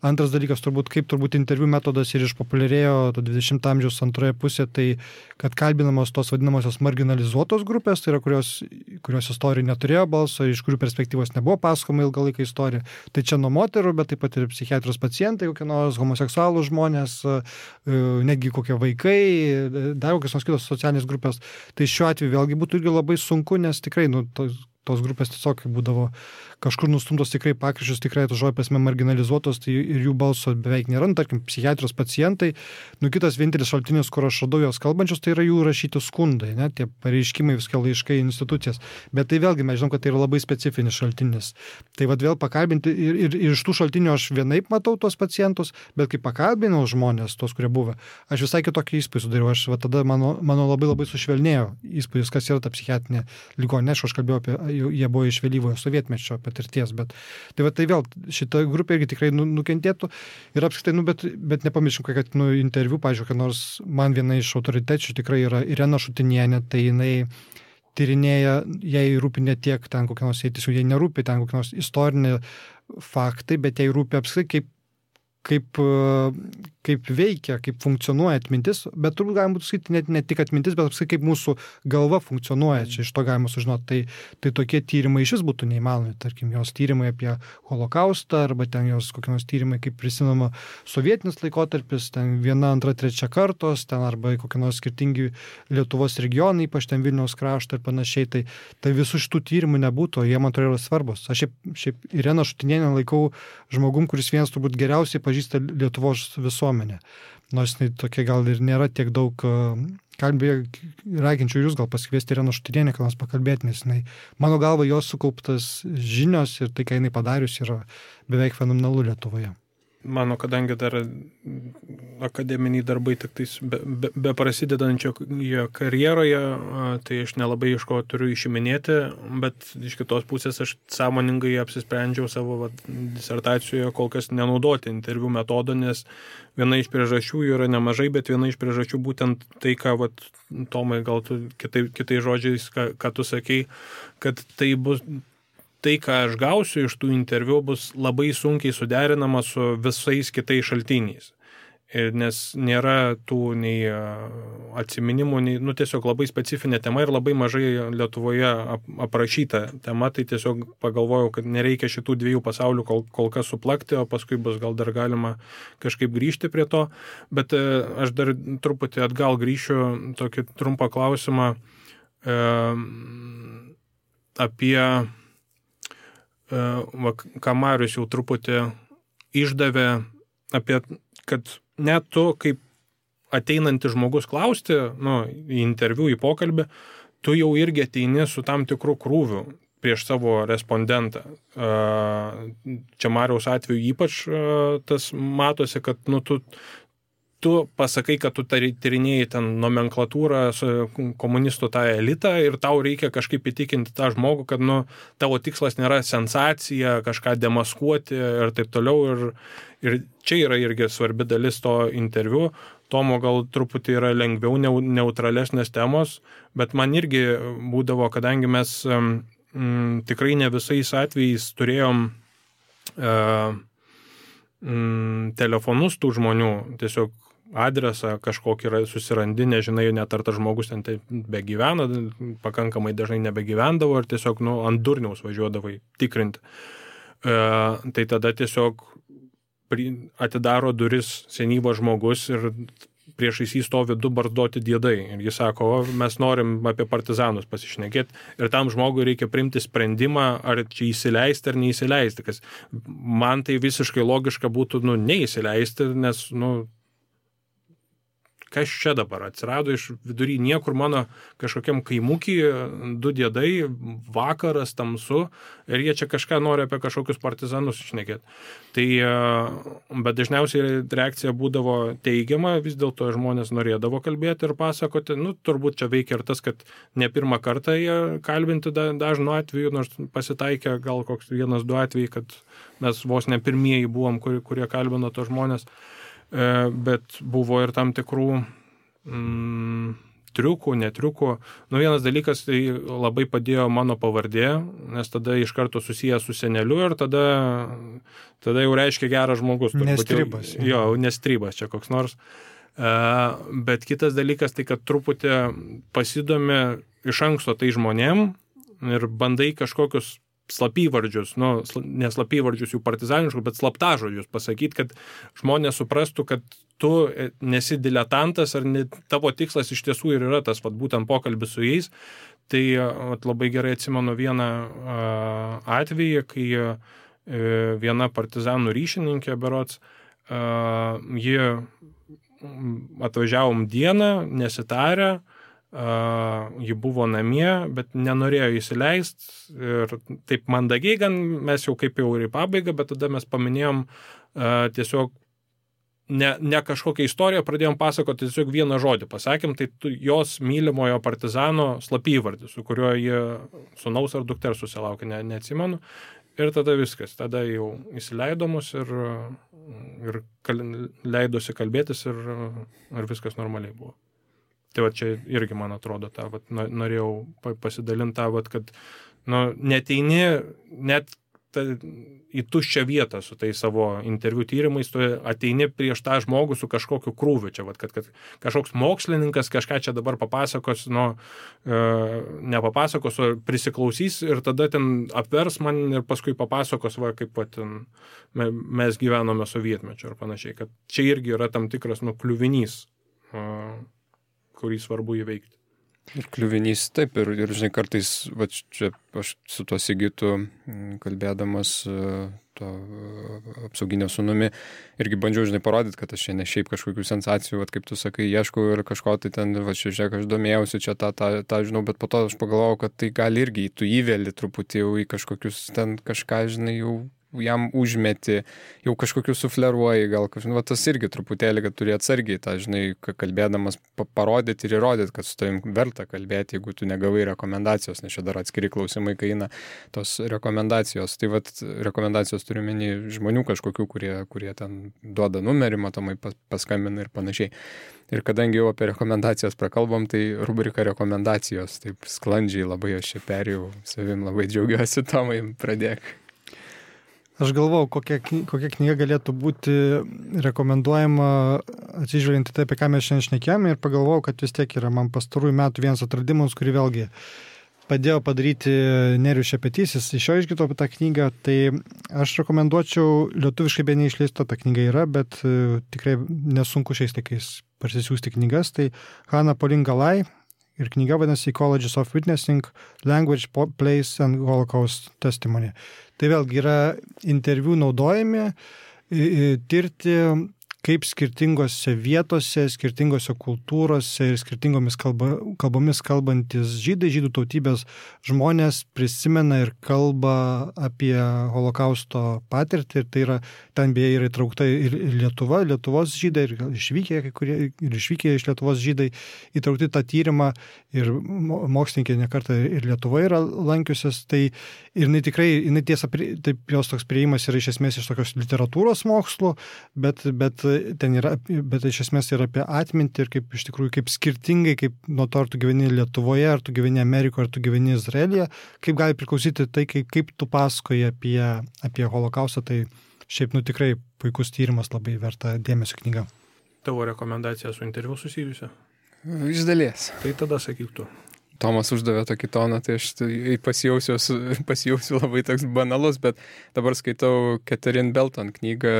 Antras dalykas, kaip interviu metodas ir išpopuliarėjo 20 amžiaus antroje pusėje, tai kad kalbinamos tos vadinamosios marginalizuotos grupės, tai yra kurios istorija neturėjo balso, iš kurių perspektyvos nebuvo pasakoma ilgą laiką istorija. Tai čia nuo moterų, bet taip pat ir psichiatrijos pacientai, kokie nors homoseksualų žmonės, netgi kokie vaikai, dar kokios nors kitos socialinės grupės. Tai šiuo atveju vėlgi būtų irgi labai sunku, nes tikrai tos grupės tiesiog būdavo kažkur nustumtos tikrai pakryžius, tikrai to žodžio prasme marginalizuotos, tai ir jų balso beveik nėra, tarkim, psichiatrijos pacientai. Kitas vienintelis šaltinis, kur aš radau jos kalbančius, tai yra jų rašyti skundai, tie pareiškimai, viską laiškai institucijas. Bet tai vėlgi mes žinom, kad tai yra labai specifinis šaltinis. Tai vėl pakalbinti ir iš tų šaltinių aš vienaip matau tos pacientus, bet kai pakalbinau žmonės, tos, kurie buvo, aš visai kitokį įspūdį sudariau. Aš tada mano labai labai sušvelnėjo įspūdis, kas yra ta psichiatrinė ligoninė. Aš kalbėjau apie, jie buvo iš vėlyvojo sovietmečio patirties, bet tai vėl šita grupė irgi tikrai nukentėtų ir apskritai, bet nepamirškim, kad interviu, pavyzdžiui, kad nors man viena iš autoritečių tikrai yra Irena Šutinienė, tai jinai tyrinėja, jai rūpi ne tiek ten kokie nors, tiesiog jai nerūpi ten kokie nors istoriniai faktai, bet jai rūpi apskritai kaip veikia, kaip funkcionuoja atmintis, bet turbūt galima būtų sakyti ne tik atmintis, bet apskritai kaip mūsų galva funkcionuoja, čia iš to galima sužinoti. Tai tokie tyrimai iš vis būtų neįmanomi, tarkim, jos tyrimai apie holokaustą, arba ten jos kokie nors tyrimai, kaip prisimama sovietinis laikotarpis, ten 1, 2, 3 kartos, ten arba kokie nors skirtingi Lietuvos regionai, ypač ten Vilniaus krašto ir panašiai, tai visų šitų tyrimų nebūtų, jie man atrodo yra svarbus. Aš šiaip Ireną Šutinienę laikau žmogum, kuris vienas turbūt geriausiai pažįsta pažįsta Lietuvos visuomenę. Nors tokia gal ir nėra tiek daug raginčiau jūs gal pasikviesti Ireną Šutirienę, ką nors pakalbėti, nes mano galva jos sukauptas žinios ir tai, ką jinai padarius, yra beveik fenomenalu Lietuvoje. Mano, kadangi dar akademiniai darbai tik tais be prasidedančio karjeroje, tai aš nelabai iš ko turiu išiminėti, bet iš kitos pusės aš sąmoningai apsisprendžiau savo disertacijoje kol kas nenaudoti interviu metodo, nes viena iš priežasčių yra nemažai, bet viena iš priežasčių būtent tai, ką, Tomai, gal tu kitais žodžiais, ką tu sakei, kad tai, ką aš gausiu iš tų interviu, bus labai sunkiai suderinama su visais kitais šaltiniais. Nes nėra tų nei atsiminimų, nei, tiesiog labai specifinė tema ir labai mažai Lietuvoje aprašyta tema, tai tiesiog pagalvojau, kad nereikia šitų dviejų pasaulių kol kas suplakti, o paskui bus gal dar galima kažkaip grįžti prie to. Bet aš dar truputį atgal grįšiu tokį trumpą klausimą apie ką Marius jau truputį išdavė apie, kad net tu, kaip ateinantis žmogus klausti, į interviu, į pokalbį, tu jau irgi ateini su tam tikru krūviu prieš savo respondentą. Čia Mariaus atveju ypač tas matosi, kad tu pasakai, kad tu tyrinėjai ten nomenklatūrą, komunistų tą elitą ir tau reikia kažkaip įtikinti tą žmogų, kad tavo tikslas nėra sensacija, kažką demaskuoti ir taip toliau. Ir čia yra irgi svarbi dalis to interviu. Tomo gal truputį yra lengviau neutralesnės temos, bet man irgi būdavo, kadangi mes tikrai ne visais atvejais turėjom telefonus tų žmonių, tiesiog adresą kažkokį yra susirandi, nežinai, net ar tas žmogus ten begyvena, pakankamai dažnai nebegyvendavo ir tiesiog ant durniaus važiuodavai tikrinti. Tai tada tiesiog atidaro duris senyvas žmogus ir priešais jį stovi du barzdoti diedai. Ir jis sako, mes norim apie partizanus pasišnekėti. Ir tam žmogui reikia priimti sprendimą, ar čia įsileisti ar neįsileisti. Kas man tai visiškai logiška būtų neįsileisti, nes kas čia dabar atsirado iš vidury niekur mano kažkokiam kaimukį, du diedai, vakaras, tamsu, ir jie čia kažką nori apie kažkokius partizanus šnekėti. Tai, bet dažniausiai reakcija būdavo teigiama, vis dėlto žmonės norėdavo kalbėti ir pasakoti, turbūt čia veikia ir tas, kad ne pirmą kartą jie kalbinti dažnu atveju, nors pasitaikė gal koks 1-2 atvejai, kad mes vos ne pirmieji buvom, kurie kalbino tos žmonės. Bet buvo ir tam tikrų triukų, netriukų. Vienas dalykas, tai labai padėjo mano pavardė, nes tada iš karto susijęs su seneliu ir tada jau reiškia geras žmogus. Nestribas. Jo, nestribas čia koks nors. Bet kitas dalykas, tai kad truputį pasidomi iš anksto tai žmonėm ir bandai kažkokius slapyvardžius, ne slapyvardžius jų partizaniškus, bet slaptažodžius pasakyti, kad žmonės suprastų, kad tu nesi diletantas ar tavo tikslas iš tiesų ir yra tas būtent pokalbis su jais. Tai labai gerai atsimenu vieną atvejį, kai viena partizanų ryšininkė berods, ji atvažiavom dieną, nesitarę, ji buvo namie, bet nenorėjo įsileisti ir taip mandagiai gan, mes jau kaip jau ir į pabaigą, bet tada mes paminėjom tiesiog ne kažkokią istoriją, pradėjom pasakoti, tiesiog vieną žodį pasakėm, tai jos mylimojo partizano slapyvardį, su kuriuo jie sūnaus ar dukters susilaukė, neatsimenu. Ir tada viskas, tada jau įsileido mus ir leidosi kalbėtis ir viskas normaliai buvo. Tai čia irgi, man atrodo, norėjau pasidalinti kad neteini net į tuščią vietą su tai savo interviu tyrimais, tu ateini prieš tą žmogų su kažkokiu krūviu. Čia, kad kažkoks mokslininkas kažką čia dabar papasakos, nepapasakos, o prisiklausys ir tada ten apvers man ir paskui papasakos, kaip mes gyvenome sovietmečio ir panašiai. Kad čia irgi yra tam tikras kliuvinys, kurį svarbu įveikti. Ir kliuvinys, taip, ir žinai, kartais, va, čia aš su tuo Sigitu kalbėdamas to apsauginio sūnumi, irgi bandžiau, žinai, parodyti, kad aš čia ne šiaip kažkokių sensacijų, va, kaip tu sakai, ieškau ir kažko tai ten, va, žiūrėk, aš domėjausi čia tą žinau, bet po to aš pagalvojau, kad tai gali irgi, tu įveli truputį jau į kažkokius ten kažką, žinai, jau jam užmeti, jau kažkokiu sufleruoji, gal kažkaip, va, tas irgi truputėlį, kad turi atsargiai tą, žinai, kalbėdamas parodyti ir įrodyti, kad su tavim verta kalbėti, jeigu tu negavai rekomendacijos, nes čia dar atskiri klausimai, kai eina tos rekomendacijos. Tai va, rekomendacijos turiu menį žmonių kažkokių, kurie ten duoda numerį, matomai paskambina ir panašiai. Ir kadangi jau apie rekomendacijas prakalbom, tai rubrika rekomendacijos, taip sklandžiai labai aš čia perėjau, savim labai džiaugiuosi, Tomai, pradėk. Aš galvau, kokia knyga galėtų būti rekomenduojama atsižvelgiant į tai, apie ką mes šiandien šnekėjome, ir pagalvojau, kad vis tiek yra man pastarųjų metų vienas atradimas, kurį vėlgi padėjo padaryti Nerijus Šepetysis. Iš jo išgirdau apie tą knygą, tai aš rekomenduočiau, lietuviškai be neišleista ta knyga yra, bet tikrai nesunku šiais laikais parsisiųsti knygas, tai Hannah Pauline Galai. Ir knyga vadinasi Ecologies of Witnessing, Language, Place and Holocaust Testimony. Tai vėlgi yra interviu naudojami tirti, kaip skirtingose vietose, skirtingose kultūrose ir skirtingomis kalbomis kalbantis žydų tautybės žmonės prisimena ir kalba apie holokausto patirtį. Ir tai yra, ten beje yra įtraukta ir Lietuva, Lietuvos žydai, ir išvykę, kai kurie ir išvykę iš Lietuvos žydai įtraukti tą tyrimą, ir mokslininkai nekartą ir Lietuva yra lankiusios. Tai ir jinai tiesa, taip jos toks prieimas yra iš esmės iš tokios literatūros mokslų, bet iš esmės yra apie atmintį ir kaip iš tikrųjų, kaip skirtingai, kaip nuo to, ar tu gyveni Lietuvoje, ar tu gyveni Amerikoje, ar tu gyveni Izraelyje, kaip gali priklausyti tai, kaip tu pasakoji apie holokaustą. Tai šiaip, tikrai puikus tyrimas, labai verta dėmesio knyga. Tavo rekomendacija su interviu susijusia? Iš dalies. Tai tada sakyk tu. Tomas uždavė tokį toną, tai aš pasijausiu labai toks banalus, bet dabar skaitau Catherine Belton knygą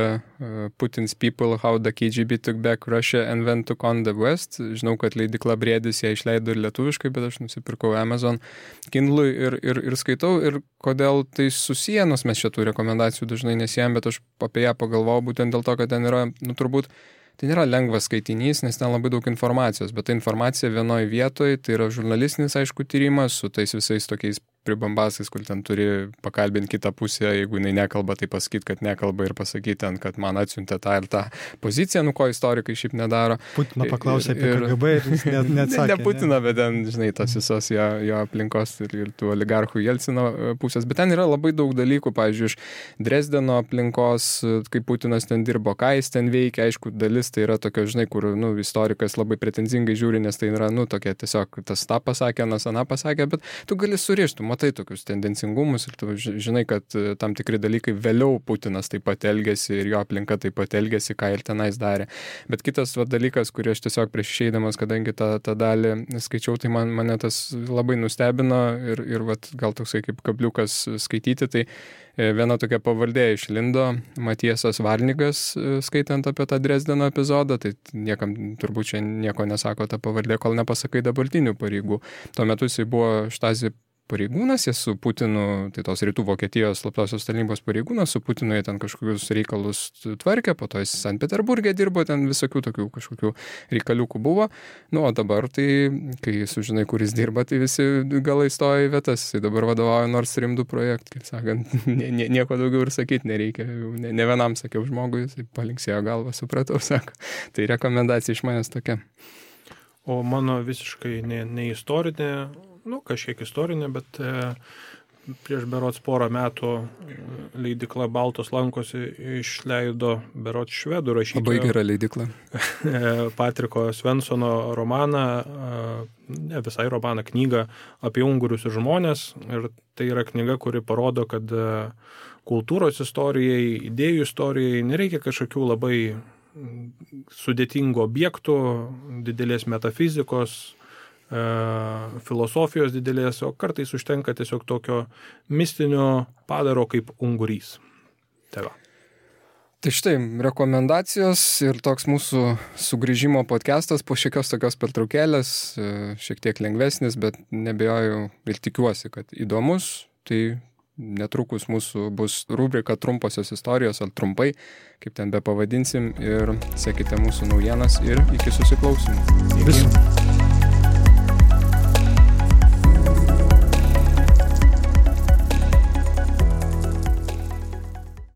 Putin's People, How the KGB Took Back Russia and When Took on the West. Žinau, kad leidykla Briedis ją išleido ir lietuviškai, bet aš nusipirkau Amazon Kindle ir skaitau, ir kodėl tai susiję, nors mes šitų rekomendacijų dažnai nesijam, bet aš apie ją pagalvojau būtent dėl to, kad ten yra, turbūt, tai nėra lengvas skaitinys, nes ten labai daug informacijos, bet ta informacija vienoje vietoje, tai yra žurnalistinis, aišku, tyrimas su tais visais tokiais pribambasais, kur ten turi pakalbinti kitą pusę, jeigu jinai nekalba, tai pasakyti, kad nekalba, ir pasakyti ten, kad man atsiuntė tą ir tą poziciją, ko istorikai šiaip nedaro. Putino paklausė apie KGB ir jis neatsakė. Ne Putino, bet ten, žinai, tos visos jo aplinkos ir tų oligarchų Jelcino pusės. Bet ten yra labai daug dalykų, pavyzdžiui, iš Dresdeno aplinkos, kaip Putinas ten dirbo, ką jis ten veikia. Aišku, dalis tai yra tokia, žinai, kur istorikas labai pretenzingai žiūri, nes tai yra, tokia tiesiog tas tą pasakė, nas aną pasakė, bet tu gali surišti, matai tokius tendencingumus ir tu žinai, kad tam tikri dalykai vėliau Putinas taip pat elgėsi ir jo aplinka taip pat elgėsi, ką ir tenais darė. Bet kitas dalykas, kurį aš tiesiog prieš išeidamas, kadangi tą dalį skaičiau, tai mane tas labai nustebino ir gal toksai kaip kabliukas skaityti, tai viena tokia pavardė išlindo, Matiesas Varnigas, skaitant apie tą Dresdeno epizodą, tai niekam turbūt čia nieko nesako ta pavardė, kol nepasakai dabartinių pareigų. Tuo metu jisai buvo Štasi pareigūnas, jis su Putinu, tai tos rytų Vokietijos slaptosios tarnybos pareigūnas, su Putinu jie ten kažkokius reikalus tvarkė, po to jis Sankt Peterburge dirbo, ten visokių tokių kažkokių reikaliukų buvo. O dabar tai, kai sužinai, kur jis dirba, tai visi galai stoja į vietas. Jis dabar vadovauja Nord Stream 2 projektui, kaip sakant, nieko daugiau ir sakyti nereikia. Ne vienam sakiau žmogui, jis palinksėjo galvą, supratau, sako. Tai rekomendacija iš manęs tokia. O mano visiškai ne istorinė, kažkiek istorinė, bet prieš berods porą metų leidykla Baltos lankos išleido berods švedų rašytojo. Labai gera leidykla. Patriko Svensono romaną, ne visai romaną, knygą apie ungurius ir žmonės. Ir tai yra knyga, kuri parodo, kad kultūros istorijai, idėjų istorijai nereikia kažkokių labai sudėtingų objektų, didelės metafizikos, filosofijos didelės, o kartais užtenka tiesiog tokio mistinio padaro kaip ungurys. Tai va. Tai štai, rekomendacijos ir toks mūsų sugrįžimo podcastas po šiekios tokios pertraukėlės, šiek tiek lengvesnis, bet nebejoju ir tikiuosi, kad įdomus. Tai netrukus mūsų bus rubrika trumposios istorijos, ar trumpai, kaip ten be pavadinsim, ir sekite mūsų naujienas ir iki susiklausimų. Viso.